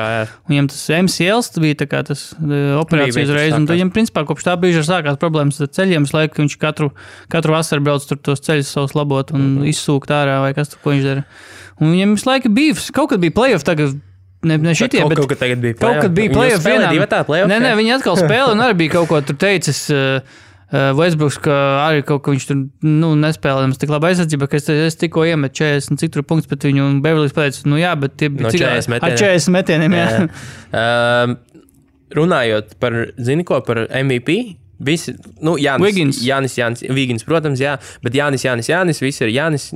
B: Un viņam tas MCLs bija tā kā tas operācijas reiz, un viņam principā kopš tā brīža sākās problēmas ar ceļiem, es laiku, ka viņš katru vasaru brauc tur tos ceļus savus labot un izsūkt ārā, vai kas tur, ko viņš dara. Un viņam visu laiku bija, kaut kad bija playoff tagad, ne šitie, bet
A: kaut kad tagad bija
B: playoff. Kaut kad bija playoff vienā. Nē, viņi atkal spēlē un arī bija kaut ko tur teicis, Westbrooks, ka arī kaut ko viņš tur nespēlējams tik labi aizsardzība, ka es tikko iemet 40 cik tur punktus, bet viņu un Beverlīs pateica, jā, bet tie bija ar 40 metieniem, jā.
A: Runājot par, par MVP, visi, Jānis, protams, jā, bet Jānis, visi ir Jānis.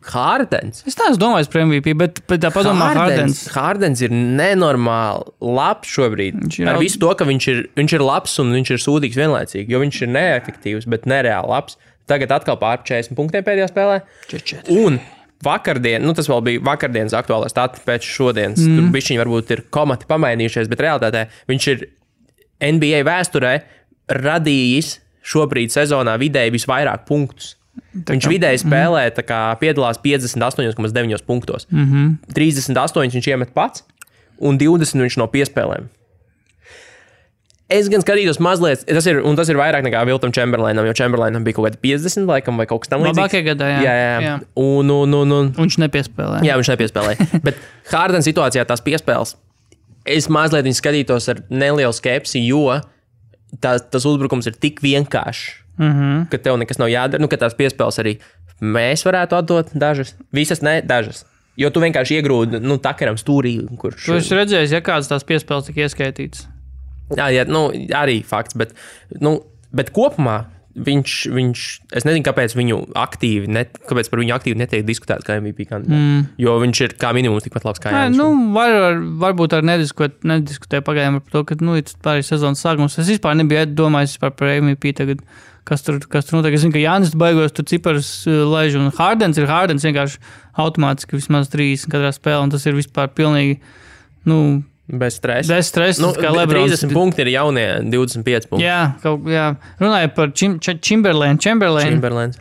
A: Hardens.
B: Es tā domāju par MVP, bet tā padomā Hardens.
A: Hardens ir nenormāli labs šobrīd. Ar visu to, ka viņš ir labs un viņš ir sūdīgs vienlaicīgi, jo viņš ir neefektīvs, bet nereāli labs. Tagad atkal pār 40 punktiem pēdējā spēlē.
B: 44.
A: Un vakardien, tas vēl bija vakardienas aktuālais stats pēc šodienas. Tur bišķiņi varbūt ir komati pamainījušies, bet realitātē viņš ir NBA vēsturē radījis šobrīd sezonā vidēji visvairāk punktus. Viņš vidēji spēlē, piedalās 58,9 punktos. 38 viņš iemet pats, un 20 viņš no piespēlēm. Es gan skatījos mazliet, tas ir vairāk nekā Wiltam Chamberlainam, jo Chamberlainam bija kaut kādi 50 laikam vai kaut kas tam līdzīgs.
B: Labākie gadā, jā.
A: Un
B: viņš nepiespēlē.
A: Jā, viņš nepiespēlē. Bet Harden situācijā tās piespēles, es mazliet viņu skatītos ar nelielu skepsi, jo tas uzbrukums ir tik vienkāršs. Ka tev nekas nav jādara, ka tās piespēles arī mēs varētu atdot dažas, visas ne, dažas. Jo tu vienkārši iegrūdi, takaram stūrī, kurš...
B: Tu esi redzējis, kādas tās piespēles tika ieskaitītas?
A: Jā, arī fakts, bet kopumā viņš, es nezinu, kāpēc kāpēc par viņu aktīvi netiek diskutēts kā MVP kandidāts, jo viņš ir kā minimums tikpat labs kā Jānis.
B: Varbūt arī nediskutēja pagājām par to, ka, pārējais sezonas sākums, es vispār nebiju domājis par MVP tagad, kas tur notiek. Es zinu, ka Jānis baigos tur ciparus laiž, un Hardens vienkārši automātiski vismaz 30 katrā spēlē, un tas ir vispār pilnīgi,
A: bez stresa.
B: Kā Lebrons.
A: 30 punkti ir jaunie 25 punkti.
B: Jā. Runāju par Chamberlain.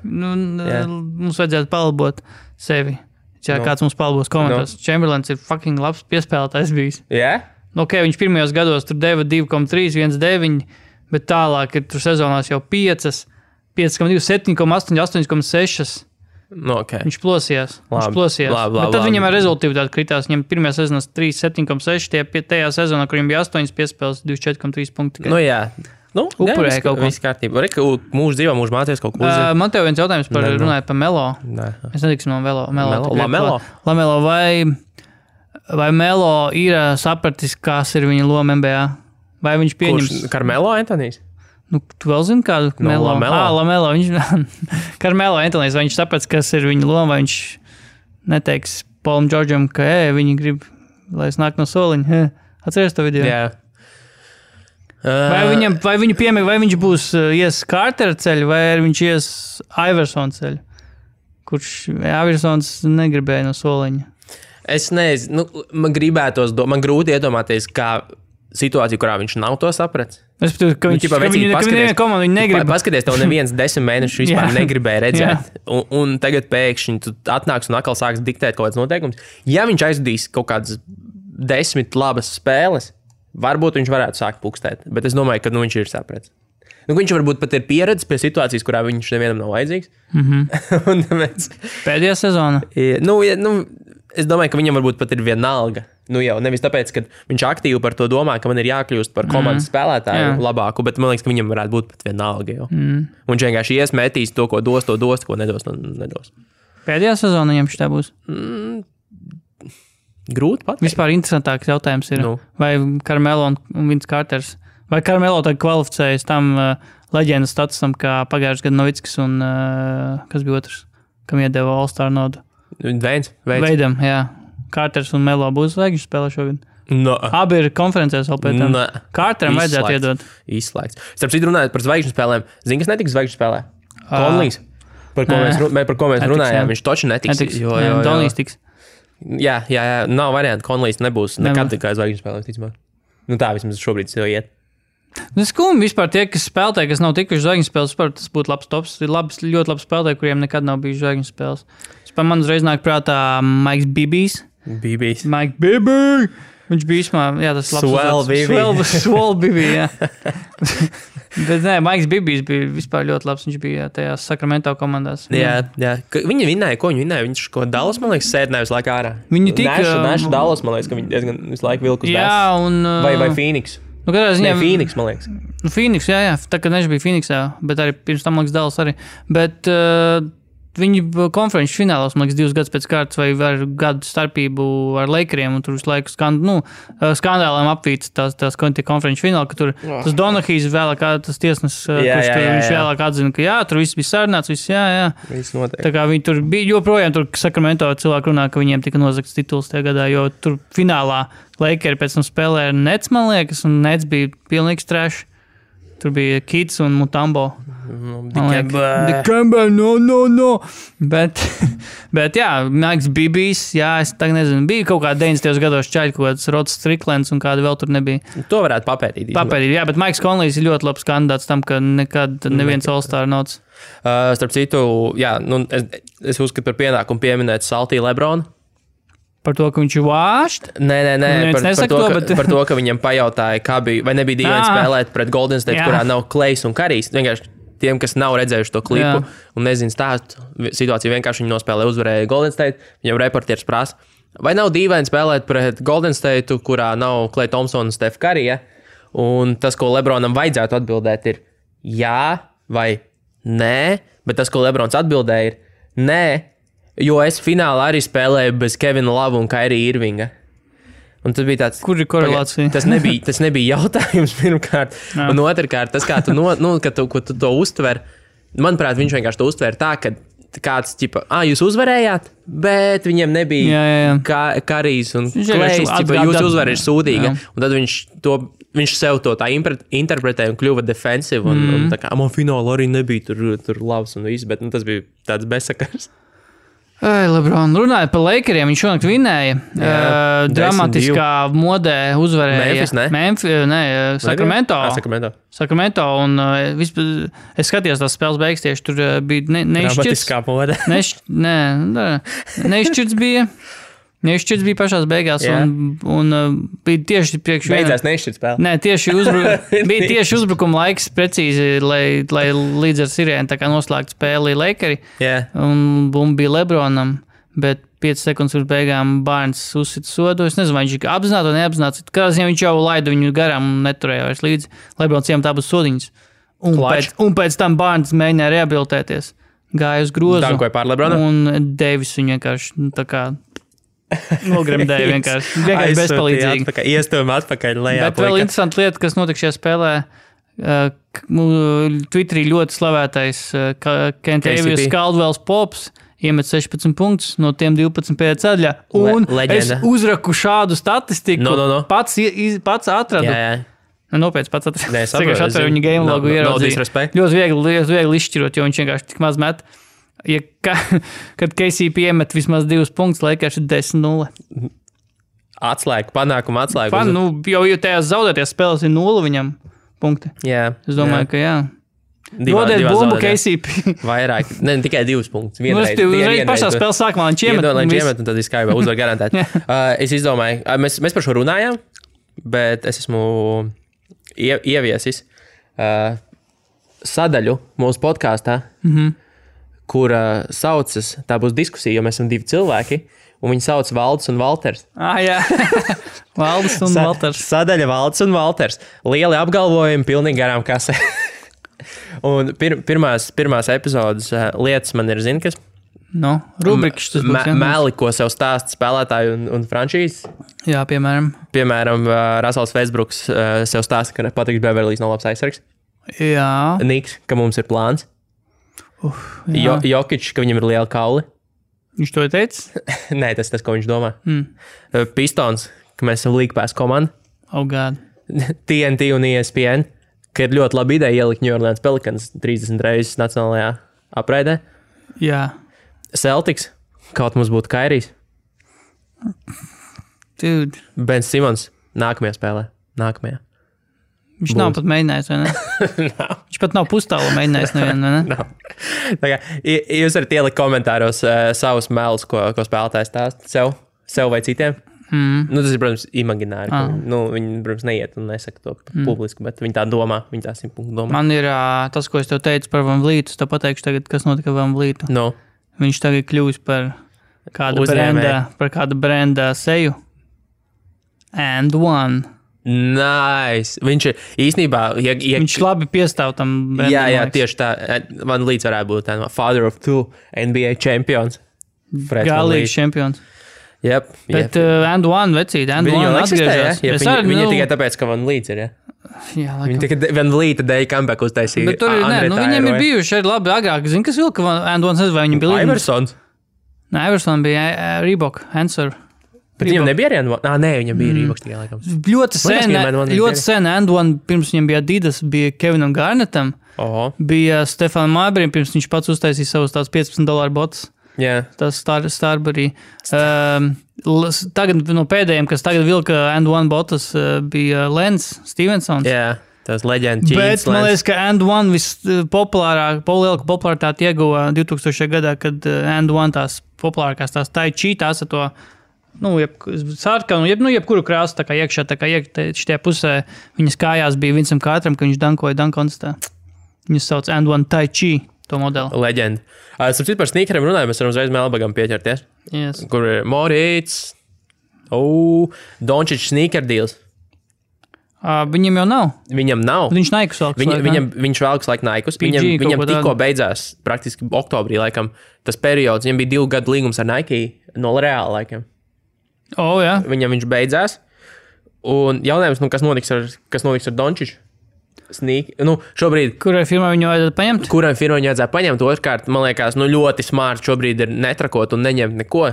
B: Mums vajadzētu palabot sevi. Kāds mums palabos komentārs. Chamberlains ir fucking labs piespēlētājs bijis.
A: Jā?
B: Viņš pirmajos gados tur deva 2,3, 1,9, bet tālāk ir tur sezonās jau 5,2, 7,8, 8,6.
A: Okay.
B: Viņš plosījās. Bet tad viņam ar rezultātu kritās. Viņam pirmajā sezonā 3,7,6, tajā sezonā, kur viņam bija 8 piespēles, 24,3 punkti.
A: Nu jā.
B: Upurēja kaut ko.
A: Viss kārtībā. Mūsu dzīvē mūsu mācījās kaut ko uzzīt.
B: Man tev viens jautājums runāja par Melo. Es netiksim no Lamelo. Vai Melo ir sapratis, kas ir viņa loma NBA? Vai viņš pieņems...
A: Carmelo Antonijs?
B: Tu vēl zini kādu? Lamelo. Carmelo Antonijs, vai viņš saprats, kas ir viņa loma, vai viņš neteiks Paulam Džordžam, ka viņi grib, lai es nāk no soliņa. Atceries to video?
A: Jā.
B: Vai viņu piemēr, vai viņš būs ies Cartera ceļu, vai viņš ies Iversona ceļu, kurš Iversons negribēja no soliņa.
A: Es nezinu, man grūti iedomāties, kā situācija, kurā viņš nav to sapratis.
B: Es domāju, ka viņa komanda viņu negrib.
A: Paskaties, tev neviens 10 mēnešus vispār negribēja redzēt. Un tagad pēkšņi tu atnāks un atkal sāks diktēt kaut kāds noteikums. Ja viņš aizvedīs kaut kādas 10 labas spēles, varbūt viņš varētu sākt pukstēt, bet es domāju, ka viņš ir sapratis. Viņš varbūt pat ir pieredzis pie situācijas, kurā viņš nevienam nav vajadzīgs.
B: Pēdējā sezona?
A: Es domāju, ka viņam varbūt pat ir vienalga. Jau nevis tāpēc, ka viņš aktīvi par to domā, ka man ir jākļūst par komandas spēlētāju labāku, bet man liekas, ka viņam varētu būt pat vienalga. Viņš vienkārši iesmētīs to, ko dos, ko nedos. Pēdējā
B: sezona viņam šitā būs?
A: Grūti pateikt.
B: Vispār interesantāks jautājums ir, vai Carmelo un Vince Carters, vai Carmelo tagad kvalificējas tam leģendas statusam, kā pagājušajā gadā Novickis un kas bija otrs, kam iedeva All-Star nodu? Veidam, jā. Carters un Melo būs zvaigžņu spēlē šogad? Abi ir konferencēs vēl pēc tam. Carteram vajadzētu iedot.
A: Izslēgts. Starp citu runājot par zvaigžņu spēlēm, zini, kas netiks zvaigžņu spēlē? Conleys. Par ko mēs runājām, viņš toči netiks.
B: Donijs tiks.
A: Jā, nav variantu. Conleys nebūs nekad tikai zvaigžņu spēlē, ticamāk. Tā vismaz šobrīd jau iet.
B: Skumji vispār tie, kas spēlē, kas nav tikuši zvaigžņu spēles, tas būtu labs tops. Ir ļoti labs spēlētāji, kuriem nekad nav bijis zvaigžņu spēles. Man uzreiz nāk prātā Maiks Bibijs. Mike Bibby! Viņš bija īsmā, tas labs. Swell Bibby, jā. Bet Maiks Bibijs bija vispār ļoti labs. Viņš bija tajās Sacramento komandās.
A: Jā. Viņi vinnēja, ko viņi vinnēja? Viņš ko Dallas, man liekas, sēdināja visu laiku ārā.
B: Viņi tika...
A: Nešu Dallas, man liekas, ka viņi diezgan visu laiku vilku uz bēs. Vai Phoenix? Phoenix, man liekas.
B: Phoenix, jā. Tā kā Neša bija Phoenixā, bet arī pirms tam, man liekas, Dallas arī. Bet... Viņi konferenču finālos, man liekas, 2 gadus pēc kārtas vai ar gadu starpību ar Lakeriem, un tur visu laiku skandāliem apvīts tās konferenču fināli, ka tur tas Donahijs vēlāk, tas tiesnesis, viņš vēlāk atzina, ka tur viss bija sarunāts, viss
A: Viss notiek.
B: Tā kā viņi tur bija, joprojām tur Sacramento cilvēki runā, ka viņiem tika nozagts tituls tajā gadā, jo tur finālā Lakeri pēc tam spēlēja Nets, man liekas, un Nets bija pilnīgs trash. Tur bija Kids un Mutombo. Dikembe, no. Bet jā, Maiks Bibijs, es tagad nezinu, bija kaut kādā 90. gados čaļi, kaut kāds Rods Stricklands un kāda vēl tur nebija.
A: To varētu papētīt.
B: Jā, bet Maiks Conleys ir ļoti labs kandidāts tam, ka nekad neviens All-Star nots.
A: Starp citu, es uzskatu par pienākumu pieminēt Saltī Lebronu.
B: Par to, ka viņš ir vāšt?
A: Nē, par to, ka viņam pajautāja, kā bija, vai nebija dīvaini spēlēt pret Golden State, kurā nav Klejs un Karijs. Vienkārši tiem, kas nav redzējuši to klipu un nezinu stāstu, situāciju vienkārši viņi nospēlē, uzvarēja Golden State, viņam reportieris prasa, vai nav dīvaini spēlēt pret Golden State, kurā nav Klej Thompson un Steph Curry, un tas, ko Lebronam vajadzētu atbildēt, ir jā vai nē, bet tas, ko Lebrons atbildēja, ir nē, jo es finālā arī spēlēju bez Kevina Lava un Kairija Irvinga. Un tas bija tāds...
B: Kur ir korelācija?
A: Tas nebija jautājums pirmkārt. Un otrkārt, tas, kā tu, ko tu to uztver, manuprāt, viņš vienkārši to uztver tā, ka kāds, jūs uzvarējāt, bet viņiem nebija Karijs un Klejs, jūsu uzvara ir sūdīga. Un tad viņš sev to tā interpretēja un kļuva defensive. Un tā kā, man fināla arī nebija tur labs un viss, bet tas bija tāds bezsakars.
B: Lebron runāja par Lakeriem, viņš šonakt vinnēja. Dramatiskā modē uzvarēja Sacramento. Un es skatījos tās spēles beigas tieši, tur bija neizšķirts.
A: Dramatiskā modē.
B: Neizšķirts bija. Nešķirts bija pašās beigās, un bija tieši priekš
A: Beidzās nešķirt spēle.
B: Nē, bija tieši uzbrukuma laiks precīzi, lai līdz ar Sirēnu tā kā noslēgtu spēli Lakeri. Un bumba bija Lebronam, bet 5 sekundes pirms beigām Barnes uzsita sodu. Es nezinu, vai viņš apzināti vai neapzināti. Kādā ziņā viņš jau laida viņu garām un neturēja vairs līdzi. Lebrons iem tā būs sodiņas. Un pēc tam Barnes mēģināja rehabilitēties. Gāja uz grozu.
A: Dankoja pār Lebronu.
B: Un Deivis viņu vienkārši tā kā nogremdēja vienkārši bezpalīdzīgi.
A: Iestūma atpakaļ lejā.
B: Bet vēl interesanta lieta, kas notika šajā spēlē. Twitterī ļoti slavētais Kentavious Caldwells Pops iemet 16 punktus, no tiem 12 pēc ceļā. Un es uzraku šādu statistiku. Pats atradu. Nopietni pats atradu.
A: Es
B: atveru viņa game logu ieraudzīju. Ļoti viegli izšķirot, jo viņš vienkārši tik maz met. Kad KCP iemet vismaz 2 punktus, Lakers ir 10-0.
A: Atslēga, panākuma atslēga.
B: Jo tajās zaudēties spēles ir 0 viņam punkti. Es domāju, ka jā. Dodiet bumbu KCP.
A: Vairāk, ne tikai 2 punktus.
B: Uzreiz pašā spēles sākumā viņš iemet.
A: Un tad izskaidro, uzvar garantēt. Es izdomāju, mēs par šo runājām, bet es esmu ieviesis sadaļu mūsu podkāstā, kura saucas, tā būs diskusija, jo mēs esam 2 cilvēki, un viņi sauc Valdis un Valters.
B: Jā. Valdis un Valters.
A: Sadaļa Valdis un Valters. Lieli apgalvojumi, pilnīgi garām kasē. Un pirmās epizodes lietas man ir, zini, kas?
B: Rubrikas tas būs.
A: Meli, ko sev stāst spēlētāji un franšīzes.
B: Jā, piemēram.
A: Piemēram, Russells Westbrooks sev stāsta, ka Patriks Beverlijs nav labs aizsargs.
B: Jā.
A: Niks, ka mums ir plāns. Jokič, ka viņam ir liela kauli.
B: Viņš to ir teicis?
A: Nē, tas, ko viņš domā. Pistons, ka mēs esam League Pass komanda.
B: Oh, God.
A: TNT un ESPN, ka ir ļoti laba ideja ielikt New Orleans Pelicans 30 reizes nacionālajā apraidē.
B: Jā.
A: Celtics, kaut mums būtu Kairijs.
B: Dude.
A: Ben Simons, nākamajā spēlē.
B: Viņš nav pat mēģinājis, vai ne? Viņš pat nav pustālu mēģinājis nevienu, vai ne?
A: Tā kā, jūs varat ielikt komentāros savus melus, ko spēlētājs stāst sev vai citiem. Tas ir, protams, imagināri. Viņi, protams, neiet un nesaka to publiski, bet viņi tā domā, viņi tā 100% domā.
B: Man ir tas, ko es tev teicu par Van Vlītu, es tev pateikšu tagad, kas notika Van Vlītu. Viņš tagad kļūst par kāda brenda seju. And one.
A: Nice. Viņš ir īstenībā...
B: Viņš labi piestāv tam brendam.
A: Jā, tieši tā. Van Vlīts varētu būt tā father of 2 NBA champions.
B: Galīgs čempions.
A: Yep.
B: Bet and one vecīt, and one atgriežas.
A: Viņa tikai tāpēc, ka Van Vlīts ir, ja?
B: Jā, laikam.
A: Viņa tikai Van Vlīta dēļ comeback uztaisīja.
B: Bet tur ir, viņiem ir bijuši arī labi agrāk. Zini, kas vilka and one, vai viņi bija līdzi?
A: Iversons.
B: Nē, Iverson bija Reebok, Answer.
A: Bet viņam nebija arī and one? Nē, viņam bija Reeboks tikai, laikam.
B: Ļoti sen and one, pirms viņam bija Adidas, bija Kevinam Garnettam. Bija Stefanam Marburyam, pirms viņš pats uztaisīja savus tās $15 botus.
A: Jā.
B: Tas Starbury. Tagad no pēdējiem, kas tagad vilka and one botas, bija Lens Stevensons.
A: Jā, tas leģenda Ķīns.
B: Bet man liekas, ka and one lielāku popularitāti ieguva 2000. gadā, kad and one tās populārākās tās tai chi, tās ar to, sarkanu, jebkuru krāsu, tā kā iekšā, tā kā šitie pusē viņas kājās bija Vincam Kārtram, ka viņš dankoja dankonstā. Viņas sauc and one tai chi. Modeli.
A: Leģenda. Sapratu, par sneakeriem runājam, mēs varam uzreiz Melbagam pieķerties.
B: Yes.
A: Kur ir Morīts, Dončić sneaker deals.
B: Viņam jau nav.
A: Viņam nav.
B: Viņš Naikus velks.
A: Viņš velks laik Naikus. Viņam tikko beidzās, praktiski oktobrī, laikam, tas periods. Viņam bija 2 gadu līgums ar Nike no Reāla laikam.
B: Jā.
A: Viņam viņš beidzās. Un jautājums, kas notiks ar Dončiću? Šobrīd...
B: Kurai firmai viņu vajadzētu paņemt?
A: Kurai firmai viņu vajadzētu paņemt? Otrkārt, man liekas, ļoti smart šobrīd ir netrakot un neņemt neko.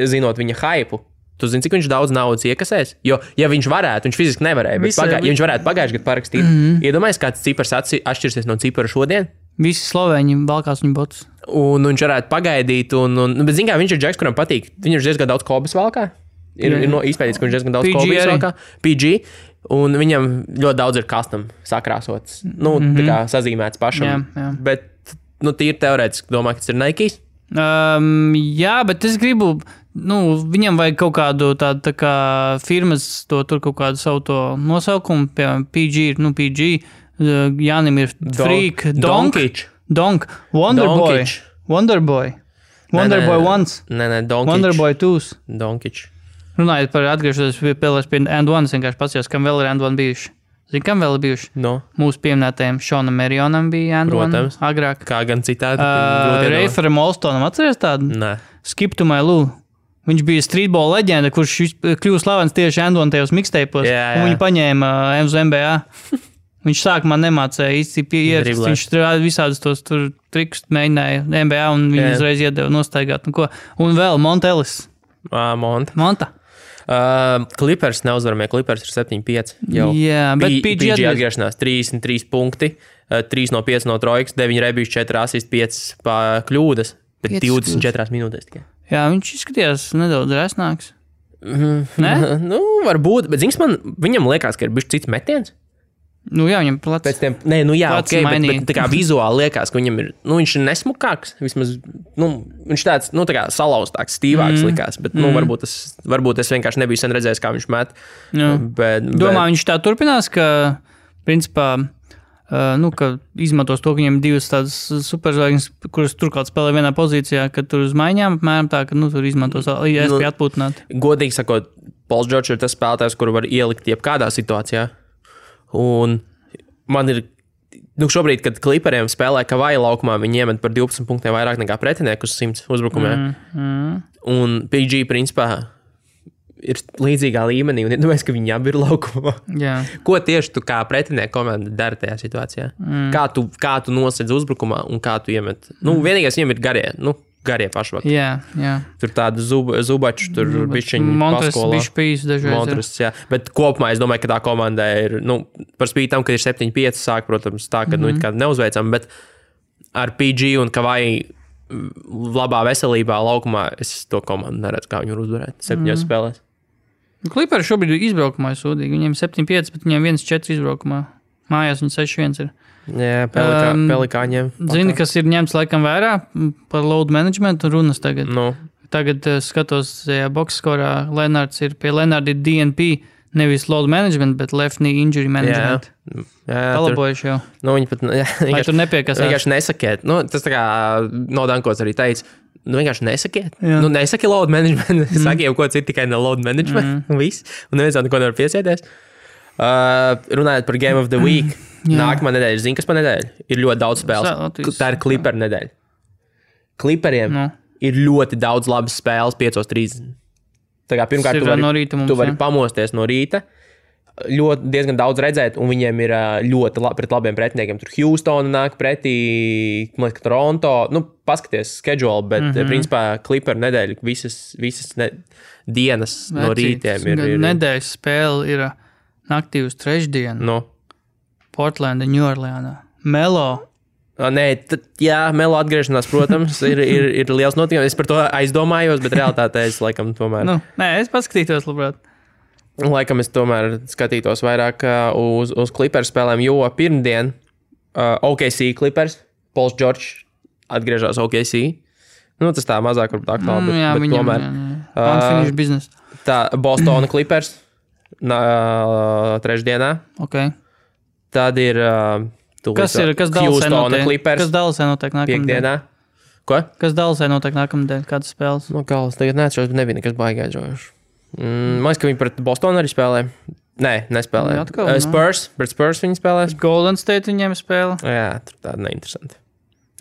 A: Zinot viņa hypu. Tu zini, cik viņš daudz naudas iekasēs? Jo, ja viņš varētu, viņš fiziski nevarēja, bet ja viņš varētu pagājuši gadu parakstīt, iedomājies, kāds cipars atšķirsies no cipara šodien?
B: Visi slovēņi valkās viņu botus.
A: Un viņš varētu pagaidīt, bet zini kā, viņš ir džeks, kuram patīk. Viņš ir diezgan daudz kobas valkā. Ir izpētīts, ka viņš diezgan daudz kobas valkā. PG. Un viņam ļoti daudz ir custom sakrāsots. Tā kā sazīmēts pašam.
B: Jā.
A: Bet, tīri teorētiski domā, ka tas ir Nike.
B: Jā, bet es gribu, viņam vajag kaut kādu tādu tā kā firmas, tur kaut kādu savu to nosaukumu, piemēram, PG, Jānim ir Freak,
A: Donkič.
B: Wonderboy Once.
A: Nē, Donkič.
B: Wonderboy 2.
A: Donkič.
B: Runājot par atgriežoties pie And One, vienkārši paskatījos, kam vēl ir And One bijuši. Zini, kam vēl ir bijuši?
A: No.
B: Mūsu pieminētajiem Šonam Merionam bija And One agrāk.
A: Kā gan citādi.
B: Reiferam Olstonam atceries tādu?
A: Nē.
B: Skip to my Lou. Viņš bija streetball leģenda, kurš kļuva slavens tieši And One tajos mixtape'os. Un viņu paņēma uz NBA. Viņš sākumā nemācēja īsti ierakst. Viņš visādus tos trikus mēģināja NBA un viņu uzreiz iedeva nostaigāt. Un vēl Montelis. Monta.
A: Clippers neuzvaramie. Clippers ir 7-5.
B: Jā, bet PG
A: atgriešanās 33 punkti, 3 no 5 no trojkas, 9 rebīši, 4 asisti, 5 kļūdas, bet 24 minūtēs tikai.
B: Jā, viņš izskatījās nedaudz resnāks.
A: Ne? Varbūt, bet zins man, viņam liekas, ka ir bišķi cits metiens.
B: Jā, viņam plats.
A: Pēc tiem, bet tā kā vizuāli liekas, ka viņam ir, viņš ir nesmukāks, vismaz, viņš tāds, tā kā salauztāks, stīvāks likās, bet, varbūt es vienkārši nebiju sen redzējis, kā viņš met.
B: Domā, viņš tā turpinās, ka, principā, ka izmantos to, ka viņam divas tādas superzvaigznes, kuras turklāt spēlē vienā pozīcijā, kad tur uz maiņām, apmēram tā, ka, tur izmantos iespēju atpūtināt.
A: Godīgi sakot, Pauls Džordžs ir tas spēlētājs, kuru var ielikt jebkādā situācijā. Un man ir, šobrīd, kad Clipperiem spēlē Kavaja laukumā, viņi iemet par 12 punktiem vairāk nekā pretinieku uz 100 uzbrukumiem. Un PG, principā, ir līdzīgā līmenī, un iedomājies, ka viņi abi ir laukumā. Ko tieši tu kā pretinieku komanda dara tajā situācijā? Kā tu nosedz uzbrukumā un kā tu iemet? Vienīgais viņam ir garie pašvakti.
B: Jā.
A: Tur tādu zubaču, tur bišķiņu paskolā.
B: Montras,
A: jā. Bet kopumā es domāju, ka tā komanda ir, par spīti tam, ka ir 7-5 sāk, protams, tā, ka, kā neuzveicam, bet ar PG un Kavai labā veselībā laukumā es to komandu neredzu, kā viņu var uzvarēt 7 spēlēs.
B: Clipperi šobrīd ir izbraukumā sūdīgi. Viņiem 7-5, bet viņiem 1-4 izbraukumā. Mājās viņi 6-1 ir.
A: Jā, pelikāņiem.
B: Zini, kas ir ņemts laikam vērā par load management runas tagad? Tagad skatos, boxskorā Lenards ir pie Lenarda ir DNP, nevis load management, bet left knee injury management. Palabojuši jau.
A: Viņi pat,
B: vai tur nepiekasās?
A: Vienkārši nesakiet. Tas tā kā Nodankots arī teica. Vienkārši nesakiet. Nesaki load management. Saki jau ko citu, tikai ne load management. Viss. Un neviens neko nevar piesieties. Runājot par Game of the Week. Nākamā nedēļa, zini, kas pa nedēļu? Ir ļoti daudz spēles. Tā ir Clipper nedēļa. Clipperiem ir ļoti daudz labas spēles 5:30. Tā kā pirmkārt tu vari pamosties no rīta, diezgan daudz redzēt, un viņiem ir ļoti pret labiem pretiniekiem. Tur Houston nāk pretī, Toronto. Paskaties schedule, bet principā Clipper nedēļa visas dienas no rītiem ir.
B: Nedēļas spēle ir naktī uz trešdienu. Portlanda, New Orleanā. Melo.
A: Melo atgriešanās, protams, ir liels notikums. Es par to aizdomājos, bet realitātē es laikam tomēr...
B: es paskatītos, labprāt.
A: Laikam es tomēr skatītos vairāk uz Clippers spēlēm, jo pirmdien OKC Clippers, Pauls Džordžs atgriežās OKC. Tas tā mazāk varbūt aktuāli, bet tomēr.
B: Unfinished business.
A: Tā Bostona Clippers trešdienā. Tad ir
B: kas
A: Houstona Clippers.
B: Kas Dallasē notiek
A: nākamnedēļ? Ko?
B: Kas Dallasē notiek nākamnedēļ? Kādas spēles?
A: Galvas tagad neatšķiros, bet nebija nekas baigā džojuši. Man liekas, ka viņi pret Bostonu arī spēlē. Nē, nespēlē. Pret Spurs viņi spēlē.
B: Golden State viņiem spēlē.
A: Jā, tur tāda neinteresanti.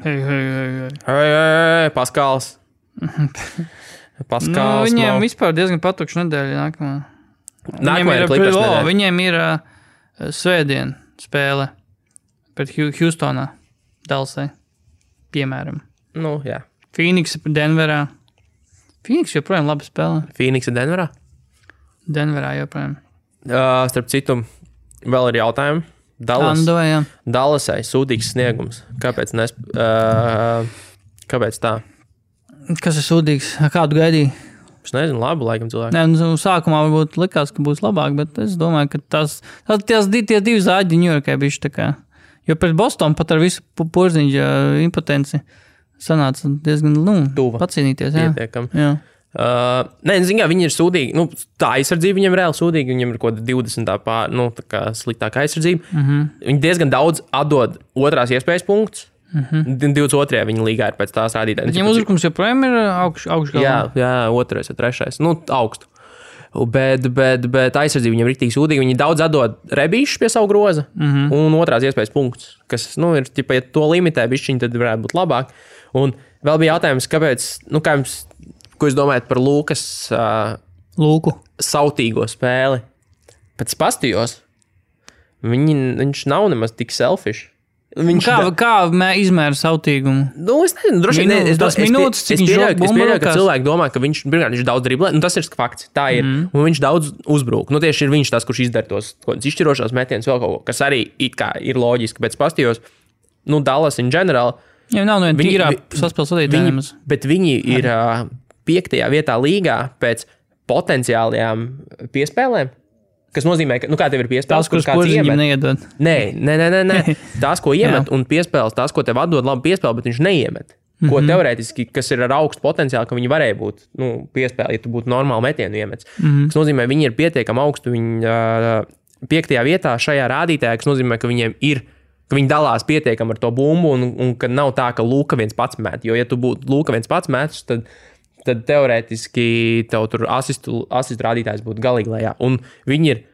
B: Hei.
A: Paskals.
B: Viņiem vispār diezgan patukša nedēļa nākamā. Viņiem ir svētdien spēle pret Houstonā, Dallasē, piemēram.
A: Jā.
B: Phoenix Denverā. Phoenix joprojām labi spēlē.
A: Phoenix Denverā?
B: Denverā joprojām.
A: Starp citu, vēl ir jautājumi. Dallasai sūdīgs sniegums. Kāpēc tā?
B: Kas ir sūdīgs? Kādu gaidīji?
A: Es nezinu, labi, laikam cilvēki.
B: Nē, sākumā varbūt likās, ka būs labāk, bet es domāju, ka tie divi zāģi Ņujorkai bišķi tā kā. Jo pret Bostonu pat ar visu Porziņģa impotenci sanāca diezgan, pacīnīties.
A: Pietiekam. Nē, zināmā, viņi ir sūdīgi. Nu, tā aizsardzība viņiem ir reāli sūdīga. Viņiem ir kaut kāda 20. Sliktāka aizsardzība. Viņi diezgan daudz atdod otrās iespējas punktus. 22. viņa līgā ir pēc tās rādītājas.
B: Viņiem uzbrukums joprojām ir augšgalā.
A: Jā, 2. vai 3. Nu, augstu. Bet aizsardzība viņam ir rīktīgi sūdīga. Viņi daudz atdod rebīšus pie savu groza un otrās iespējas punktus, kas, ir, ja to limitē bišķiņi, tad varētu būt labāk. Un vēl bija jautājums, kāpēc, ko jūs domājat par Lūkas sautīgo spēli? Pēc pastījos viņš nav nemaz tik selfish.
B: Kā izmēra sautīgumu?
A: Es nezinu, droši vien. Es pieļauju, ka cilvēki domā, ka viņš daudz driblē. Tas ir fakts. Tā ir. Un viņš daudz uzbrūk. Tieši ir viņš tas, kurš izdara tos izšķirošos metienus vēl kaut ko, kas arī it kā ir loģiski. Pēc pastījos, Dallas in general.
B: Jā, nav viena tīrā saspēles vadītājiem.
A: Bet viņi ir 5. vietā līgā pēc potenciālajām piespēlēm. Kas nozīmē, ka, kā tev ir piespēles,
B: kuras kāds iemet? Neiedod.
A: Nē. Tās, ko iemet, un piespēles, tās, ko tev atdod labi piespēli, bet viņš neiemet. Ko teorētiski, kas ir ar augstu potenciālu, ka viņi varēja būt piespēli, ja tu būtu normāli metienu iemets. Kas nozīmē, viņi ir pietiekami augstu, viņi 5. vietā šajā rādītājā, kas nozīmē, ka viņiem ir, ka viņi dalās pietiekami ar to bumbu, un ka nav tā, ka Luka viens pats met. Jo, ja tu būtu Luka viens pats metus, tad teorētiski tev tur asistu rādītājs būtu galīgi lejā. Un viņi ir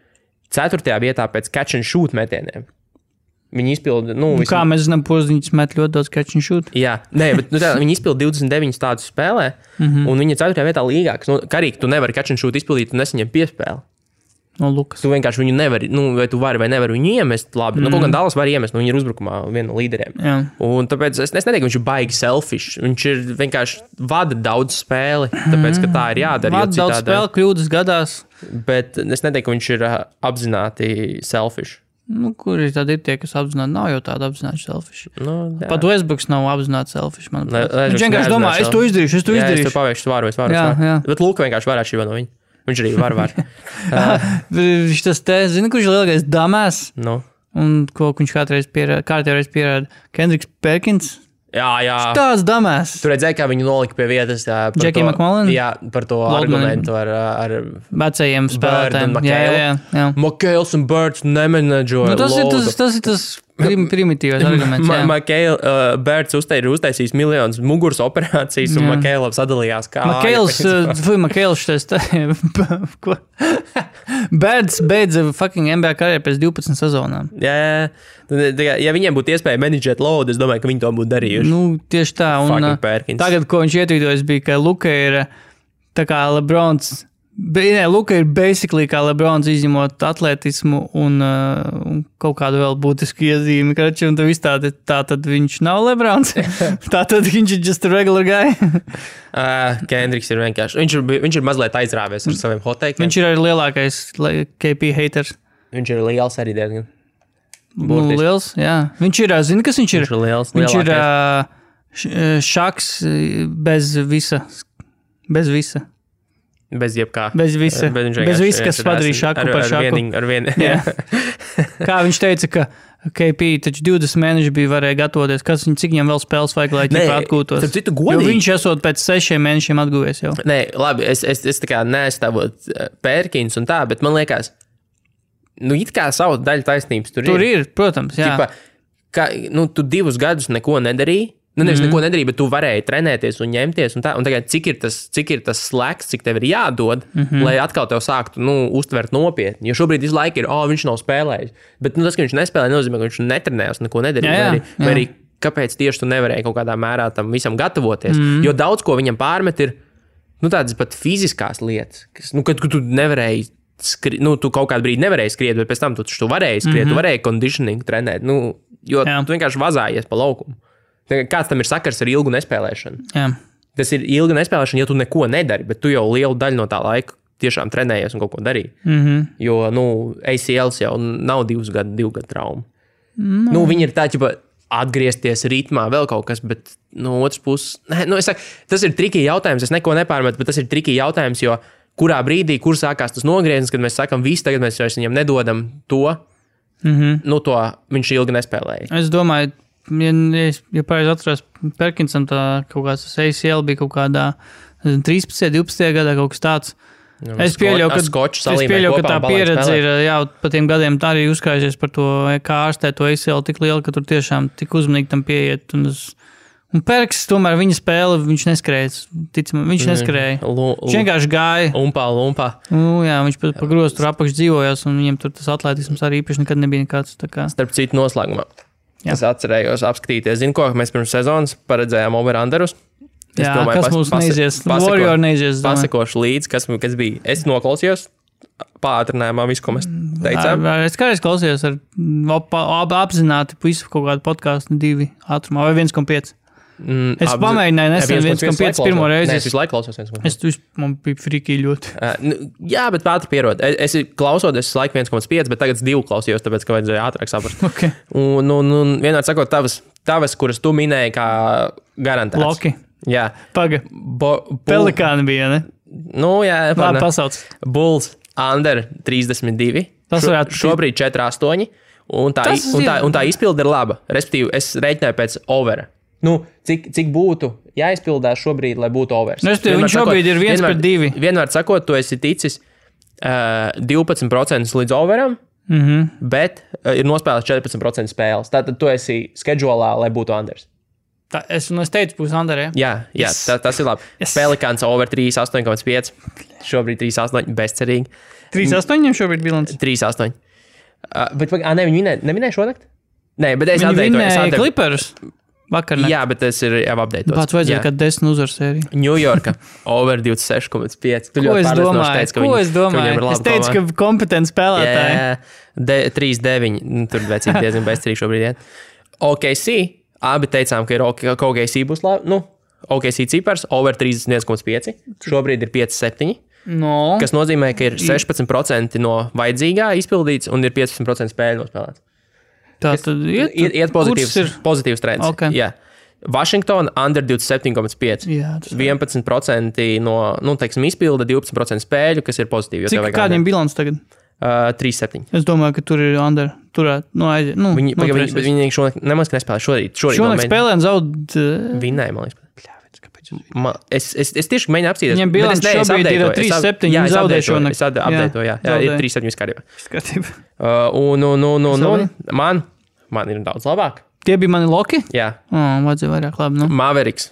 A: 4. vietā pēc catch and shoot metieniem. Viņi izpilda...
B: Kā mēs zinām, Poziņš met ļoti daudz catch and shoot?
A: Jā, bet viņi izpilda 29 tādus spēlē, un viņi ir 4. vietā līgā, kas karīgi tu nevari catch and shoot izpildīt, tu nesaņem piespēli.
B: No Lukas.
A: Tu vienkārši viņu nevari, vai tu vari vai nevari viņu iemest labi. Kaut gan Dallas var iemest, viņi ir uzbrukumā viena no līderiem.
B: Jā.
A: Un tāpēc es neteiktu, ka viņš ir baigi selfish. Viņš ir vienkārši vada daudz spēli, tāpēc, ka tā ir jādara.
B: Vada daudz spēli, kļūdas gadās.
A: Bet es neteiktu, ka viņš ir apzināti selfish.
B: Kuri tad ir tie, kas apzināti? Nav jau tāda apzināti selfish. Pat Westbrooks nav apzināti selfish. Viņš vienkārši domā, es to izdarīšu.
A: Jā, es to paveikšu svāru. Bet Luka vienkārši varētu šī no viņa. Viņš arī var.
B: Viņš tas te, zina, kurš ir lielākais damās? Un ko viņš kārtēreiz pierāda? Kendricks Perkins?
A: Jā.
B: Tāds damās.
A: Tu redzēji, kā viņu nolika pie vietas.
B: Jackie McMullen?
A: Jā, par to argumentu ar
B: vecajiem spēlētājiem. Jā.
A: McHales un Birds nemenedžoja.
B: Tas ir tas primitīvais arguments.
A: Birds ir uztaisījis miljonus muguras operācijas, un McHales sadalījās kā.
B: McHales ko? Birds beidza fucking NBA karjeru pēc 12 sezonām.
A: Jā. Ja viņiem būtu iespēja menedžēt load, es domāju, ka viņi to būtu darījuši.
B: Tieši tā. Un tagad, ko viņš ietvītojas, bija, ka Luka ir tā kā Lebrons. Luka ir basically kā Lebrons, izņemot atletismu un kaut kādu vēl būtisku iezīmi. Un tā tad viņš nav Lebrons. Tā tad viņš ir just a regular guy.
A: Kendricks ir vienkārši. Viņš ir mazliet aizrāvies ar saviem hoteikiem.
B: Viņš ir arī lielākais KP haters.
A: Viņš ir liels arī diezgan.
B: Liels, jā. Viņš ir, zini, kas viņš ir?
A: Viņš ir liels.
B: Viņš ir šaks bez visa.
A: Bez jebkā.
B: Bez visa, kas padarīja šaku par šaku.
A: Ar vienu.
B: Kā viņš teica, ka KP taču 20 mēneši varēja gatavoties, cik viņam vēl spēles vajag, lai ķipa atgūtos. Jo viņš esot pēc 6 mēnešiem atguvies jau.
A: Nē, labi, es tā kā neaizstāvot Pērkins un tā, bet man liekas, it kā savu daļu taisnības tur ir.
B: Tur ir, protams, jā.
A: Tu 2 gadus neko nedarīji. Nevis neko nedarīja, bet tu varēji trenēties un ņemties. Un tagad, cik ir tas slēgs, cik tev ir jādod, lai atkal tev sāktu uztvert nopietni. Jo šobrīd visu laiku ir, viņš nav spēlējis. Bet tas, ka viņš nespēlēja, nozīmē, ka viņš netrenējās, neko nedarīja. Vai arī kāpēc tieši tu nevarēji kaut kādā mērā tam visam gatavoties. Jo daudz ko viņam pārmet ir tādas pat fiziskās lietas, kas, kad tu nevarēji tu kaut kādu brīdi nevarēji skriet, bet pēc tam tu varēji skriet, tu varēji conditioning trenēt, jo tu vienkārši vazājies pa laukumu. Kāds tam ir sakars ar ilgu nespēlēšanu?
B: Jā.
A: Tas ir ilga nespēlēšana, ja tu neko nedari, bet tu jau lielu daļu no tā laika tiešām trenējies un kaut ko darīji. Jo, ACLs jau nav 2 gadu trauma. Viņi ir tā, atgriezties ritmā, vēl kaut kas, bet no otras puses, es saku, tas ir trikī jautājums, es neko nepārmetu, bet tas ir trikī jautājums, jo kurā brīdī, kur sākās tas nogrieziens, kad mēs sakam, tagad mēs viņam nedodam to, to viņš ilgi nespēlēja.
B: Es domāju, ja pareizi atceros, Perkinsam tā kaut kāds ACL bija kaut kādā 13. 12. gadā kaut kas tāds. Es pieļauju, ka tā pieredze ir pa tiem gadiem tā arī uzkrājusies par to, kā ārstē to ACL tik liela, ka tur tiešām tik uzmanīgi tam pieiet. Un Perks, tomēr viņa spēle, viņš neskrēja. Ticam, viņš neskrēja. Viņš vienkārši gāja.
A: Lumpā.
B: Jā, viņš pa grozu tur apakš dzīvojās, un viņam tur tas atletisms arī īpaši nekad nebija nekāds.
A: Starp citu noslēgumā. Es atcerējos apskatīties. Zinu, ko mēs pirms sezonas paredzējām over-underus.
B: Jā, domāju, kas mums neizies? Warrior neizies.
A: Pasakošu līdzi, kas bija. Es noklausījos pātrinājumā visu, ko mēs teicām.
B: Es kādreiz klausījos apzināti visu kaut kādu podcastu 2 ātrumā vai 1,5. Es pamēģināju nesen 1,5 pirmo reizi.
A: Es visu laiku klausos 1,5.
B: Man bija friki ļoti.
A: Jā, bet ātri pierod. Es klausoties visu laiku 1,5, bet tagad 2 klausījos, tāpēc, ka vajadzēja ātrāk saprast.
B: Okay.
A: Un vienmēr sakot, tavas, kuras tu minēji, kā garantēts.
B: Loki.
A: Jā.
B: Paga. Pelikāni bija, ne?
A: Nu, jā.
B: Labi, pasauc.
A: Bulls under 32. Šobrīd 4,8. Un tā izpilde ir laba. Respektīvi, es rēķināju pēc overa. Cik būtu jāizpildās šobrīd, lai būtu overs?
B: Viņš šobrīd ir 1/2.
A: Vienmēr sakot, tu esi ticis 12% līdz overam, bet ir nospēlēts 14% spēles. Tātad tu esi schedulā, lai būtu unders.
B: Es teicu, būs under,
A: jā? Jā, tas ir labi. Yes. Pelikāns over 3,8,5. Šobrīd 3,8 bezcerīgi.
B: 3,8 šobrīd bilants?
A: 3,8. Bet viņi neminēja šonakt? Nē, bet es
B: atdeitoju. Viņi vinēja Clippers. Vakarnakt.
A: Jā, bet tas ir jau updateots.
B: Pats vajadzēja, kad 10 uzvaru sēriju.
A: New Yorka over 26,5.
B: Ko es domāju? Es teicu, ka kompetenti spēlētāji.
A: Jā, 3,9. Tur vecīgi diezgan bezcerīgi šobrīd iet. OKC, abi teicām, ka OKC būs labi. OKC cipars over 31,5. Šobrīd ir 5,7.
B: No.
A: Kas nozīmē, ka ir 16% no vajadzīgā izpildīts un ir 15% spēļu nospēlēts.
B: Tā tad
A: iet pozitīvs trends.
B: Okay.
A: Jā. Washington under 27,5. 11% no, teiksim, izpilda, 12% spēļu, kas ir pozitīvi.
B: Cik kādiem bilants tagad?
A: 3,7.
B: Es domāju, ka tur ir under. Aiziet.
A: Viņi šonakt nemaz nespēlē šorīt.
B: Šonakt spēlē un zaud.
A: Vinēja, man liekas. Es tieši mēģinu apsīties.
B: Viņam bilants šobrīd ir 3,7.
A: Jā, es zaudēju šonakt. Es updatēju, jā. Ir 3,7
B: skatībā.
A: Man ir daudz labāk.
B: Tie bija mani loki?
A: Jā.
B: Vajadzēja vairāk labi.
A: Mavericks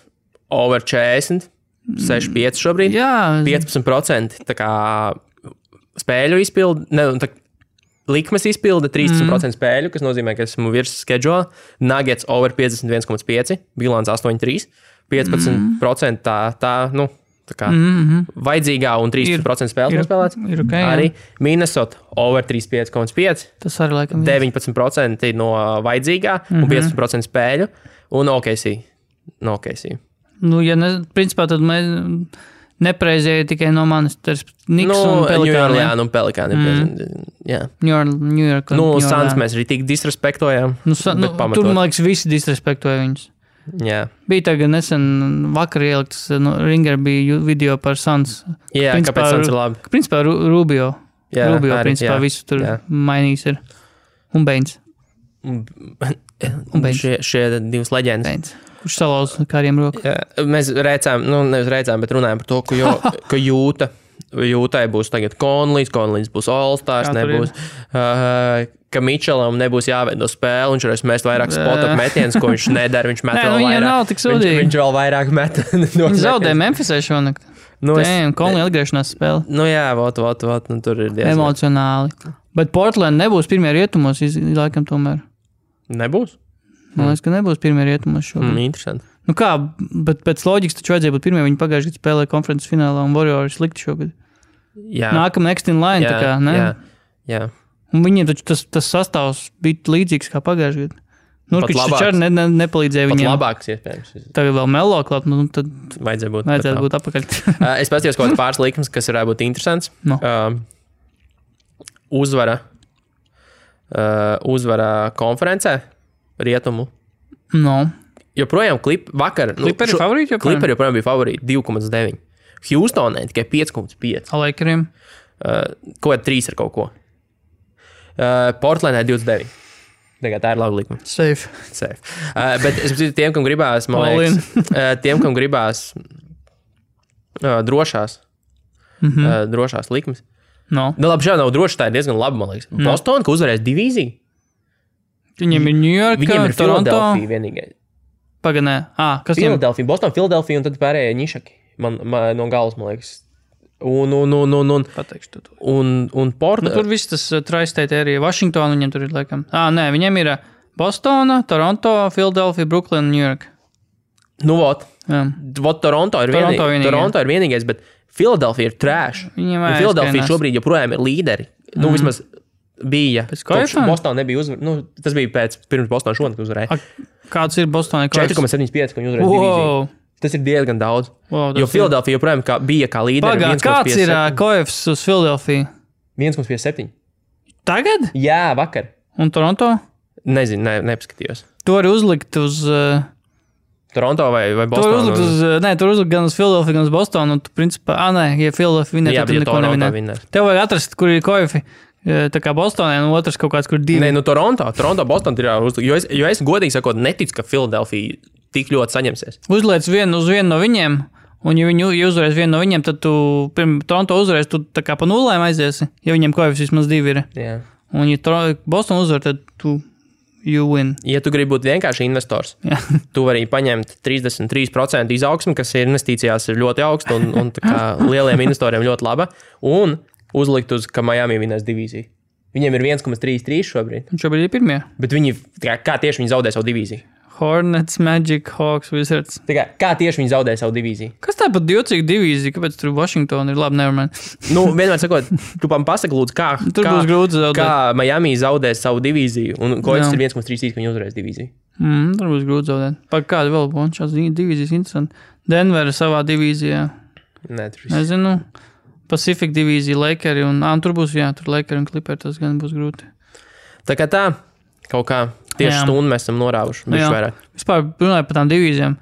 A: over 40, 6,5 šobrīd.
B: Jā.
A: 15% tā kā spēļu izpildi, likmes izpilde, 13% spēļu, kas nozīmē, ka esmu virs schedule. Nuggets over 51,5, bilants 8,3, 15% tā vajadzīgā un 13% spēles nospēlēts.
B: Okay,
A: arī Minnesota over 35,5.
B: Tas arī laikam
A: 19% no vajadzīgā un 15% spēļu. Un OKC.
B: Principā tad mēs nepreizēja tikai no manis. Niks un Pelikāni.
A: Jā, Pelikāni. Jā.
B: New York.
A: Suns mēs arī tik disrespektojām.
B: Tur, man liekas, visi disrespektoja viņus.
A: Jā.
B: Bija tagad nesen vakar ieliktas, Ringer bija video par Suns.
A: Jā, principā, kāpēc Suns ir labi?
B: Principā Rubio.
A: Jā,
B: Rubio,
A: arī,
B: principā, visu tur mainījis ir. Un Baines.
A: Šie divas leģendas.
B: Baines. Kurš salauz kādiem roku.
A: Jā, mēs nevis rēcām, bet runājām par to, ka Jūtai būs tagad Conleys būs All-Stars, nebūs... ka Mitčelam nebūs jāveido spēle, viņš varēs mest vairāk spot-up metienus, ko viņš nedara, viņš met vēl vairāk.
B: Nav tik sūdīgi.
A: Viņš vēl vairāk met.
B: Viņš zaudēja Memphisē šonakt. Conley atgriešanās spēle.
A: Jā, tur ir diezgan.
B: Emocionāli. Bet Portland nebūs pirmie rietumos, laikam tomēr.
A: Nebūs?
B: Man liekas, ka nebūs pirmie rietumos šogad.
A: Interesanti.
B: Kā, bet pēc loģikas taču vajadzēja būt pirmie, viņi pagājuši gadu spēlēja konferences finālā un Warriors slikti šogad.
A: Jā.
B: Nākam next in line, tā kā, ne?
A: Jā.
B: Un viņiem taču tas sastāvs bija līdzīgs kā pagājušajā gadā. Nurkičs taču arī nepalīdzēja viņiem.
A: Pat labāks iespējams.
B: Tagad vēl Melo klāt, tad
A: vajadzētu
B: būt apakaļ.
A: Es paskatījos kaut kāds pāris likmes, kas varētu būt interesants.
B: No.
A: Uzvara konferencē rietumu.
B: No.
A: Joprojām vakar.
B: Clipperi favorīti joprojām?
A: Clipperi joprojām bija favorīti 2,9. Houstonē tikai 5,5.
B: Lakeriem?
A: Kaut 3 ar kaut ko. Portlandē 29. Tā ir laba likme.
B: Safe.
A: Bet es domāju, tiem, kam gribās, drošās likmes.
B: No.
A: Labi, šādi nav droši, tā ir diezgan laba, man liekas. Boston, ka uzvarēs divīziju.
B: Viņiem ir New York,
A: Viņiem ir
B: Toronto.
A: Philadelphia vienīgais.
B: Paganē. Kas
A: Philadelphia, Boston, Philadelphia un tad pārējie nišaki. Man no galas, man liekas. Un
B: Pateikšu to.
A: Un Portland.
B: Tur viss tas tri-state area. Washington viņiem tur ir laikam. Nē, viņiem ir Bostona, Toronto, Philadelphia, Brooklyn, New York.
A: Vot. Toronto ir vienīgais, bet Philadelphia ir trash. Philadelphia šobrīd joprojām ir līderi. Vismaz bija. Bostonā nebija uzvarēja. Tas bija pirms Bostonā šonakt uzvarēja.
B: Kāds ir Bostonā?
A: 4,75, ko viņi uzvarēja divīziju. Tas ir diezgan daudz. Jo Philadelphia joprojām bija kā līderi.
B: Kāds ir koefs uz Philadelphia?
A: 1,57.
B: Tagad?
A: Jā, vakar.
B: Un Toronto?
A: Nezinu, nepaskatījos.
B: To arī uzlikt uz...
A: Toronto vai Bostonu?
B: Tur uzlikt gan uz Philadelphia, gan uz Bostonu. Un tu principā, ja Philadelphia vinē, tad neko nevinē. Tev vajag atrast, kur ir koefi. Tā kā Bostonē, un otrs kaut kāds, kur divi.
A: Nē, Toronto, Boston ir jāuzlikt. Jo es godīgi sakot, neticu, ka Philadelphia tik ļoti saņemsies.
B: Uzliec uz vienu no viņiem, un ja viņi uzvarēs vienu no viņiem, tad tu Toronto uzvarēs, tu tā kā pa nulēm aiziesi, ja viņiem koefis vismaz divi ir.
A: Jā.
B: Un ja Boston uzvar, tad you win.
A: Ja tu gribi būt vienkārši investors, tu vari paņemt 33% izaugsmi, kas ir investīcijās ir ļoti augsta un tā kā lieliem investoriem ļoti laba, un uzlikt uz, ka Miami vinēs divīziju. Viņiem ir 1,33 šobrīd.
B: Un šobrīd ir pirmie.
A: Bet kā tieši viņi zaudē savu divīziju?
B: Hornets, Magic, Hawks, Wizards.
A: Kā tieši viņi zaudē savu divīziju?
B: Kas tā pat jocīga divīzija? Kāpēc tur Washington ir labi, nevermind?
A: Vienmēr sakot, tu pasaki lūdzu,
B: būs grūti zaudēt.
A: Kā Miami zaudēs savu divīziju, un koefis ir 1,33, ka viņi uzvarēs divīziju.
B: Tur būs grūti zaudēt. Par kādu vēl būtu šās divīzijas interesanti? Denver savā divīzijā. Nezinu. Pacific divīzija, Lakeri un tur būs, tur Lakeri un Clippers, tas gan būs grūti.
A: Tā kā tā, kaut kā tieši stundu mēs esam norāvuši.
B: Vispār runāju par tām divīzijām.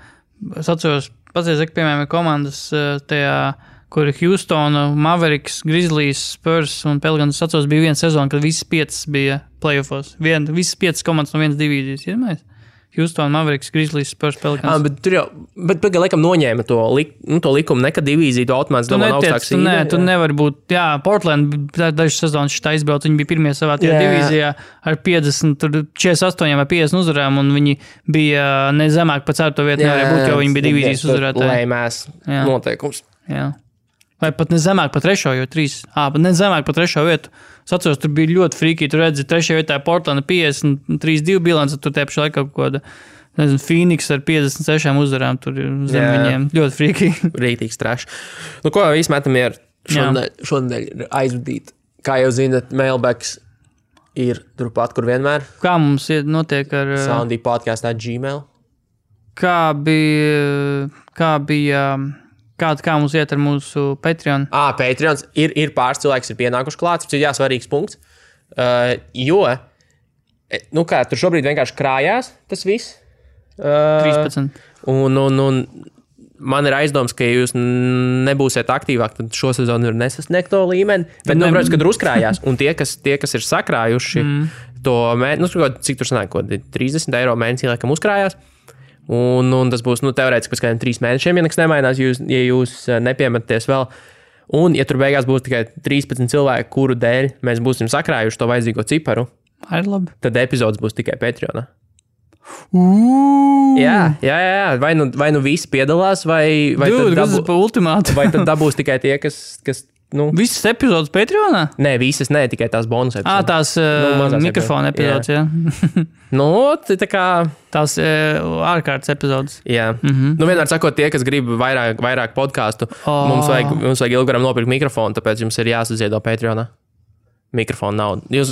B: Es atceros, paciet, piemēram, komandas tajā, kur ir Houston, Mavericks, Grizzlies, Spurs un Pelicans. Es atceros, bija viena sezona, kad visas 5 bija playoffos. Visas 5 komandas no vienas divīzijas, iedomājies? Houston, Mavericks, Grizzlies, Spurs, Pelicans.
A: Bet tur jau, laikam noņēma to likumu, nekad divīziju, to automātiski domā augstāks īdē.
B: Nē, tu nevar būt, Portland dažas sezonas šitā izbrauc, viņi bija pirmie savā tajā divīzijā ar 50, tur 48 vai 50 uzvarām, un viņi bija nezemāk pa 4. vietu, nevarēja būt, jo viņi bija divīzijas uzvarētāji.
A: Lēmēs noteikums.
B: Jā. Vai pat nezemāk pa 3, jo 3. Bet nezemāk pa 3. vietu. Es atceros, tur bija ļoti frīkī, tur redzi 3. vietā Portlanda 53-2 bilance, tur te pašā laikā kaut kāda, nezinu, Phoenix ar 56 uzvarām, tur zem viņiem ļoti frīkī.
A: Rītīgs trash. Ko visi metam ir šodien ir aizvadīt. Kā jau zinat, mailbacks ir turpat, kur vienmēr.
B: Kā mums notiek ar...
A: soundypodcast@gmail.
B: Kā mums iet ar mūsu Patreon?
A: Patreons ir pāris cilvēks, ir pienākuši klāts, tas ir svarīgs punkts. Jo, tur šobrīd vienkārši krājās tas viss.
B: 13.
A: Un man ir aizdoms, ka ja jūs nebūsiet aktīvāk, tad šo sezonu ir nesasniegt to līmeni. Bet, protams, kad uzkrājās, un tie, kas ir sakrājuši to mēnesi, cik tur sanāk, 30 eiro mēnesī, laikam uzkrājās. Un tas būs teorētiski pēc kādiem 3 mēnešiem, ja nekas nemainās, ja jūs nepiemetaties vēl. Un, ja tur beigās būs tikai 13 cilvēki, kuru dēļ mēs būsim sakrājuši to vajadzīgo ciparu, tad epizodes būs tikai Patreonā. Jā. Vai nu visi piedalās, vai tad dabūs tikai tie, kas
B: visas epizodes Patreonā?
A: Nē, visas ne, tikai tās bonus epizodes.
B: Tās mikrofona epizodes, jā.
A: Tā kā...
B: Tās ārkārtas epizodes.
A: Jā. Vienmēr sakot, tie, kas grib vairāk podcastu, mums vajag ilgaram nopirkt mikrofonu, tāpēc jums ir jāsaziedo Patreonā. Mikrofonu naudu. Jūs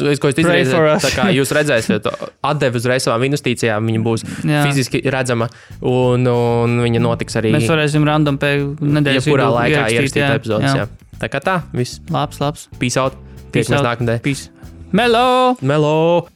A: redzēsiet, atdevi uzreiz savām investīcijām, viņa būs fiziski redzama, un viņa notiks arī...
B: Mēs varēsim random pēc nedēļas
A: jebkurā laikā ierakstīt epizodes. Jā. Tā kā tā, viss.
B: Labs.
A: Peace out. Tiekamies nākamnedēļ.
B: Peace. Melo!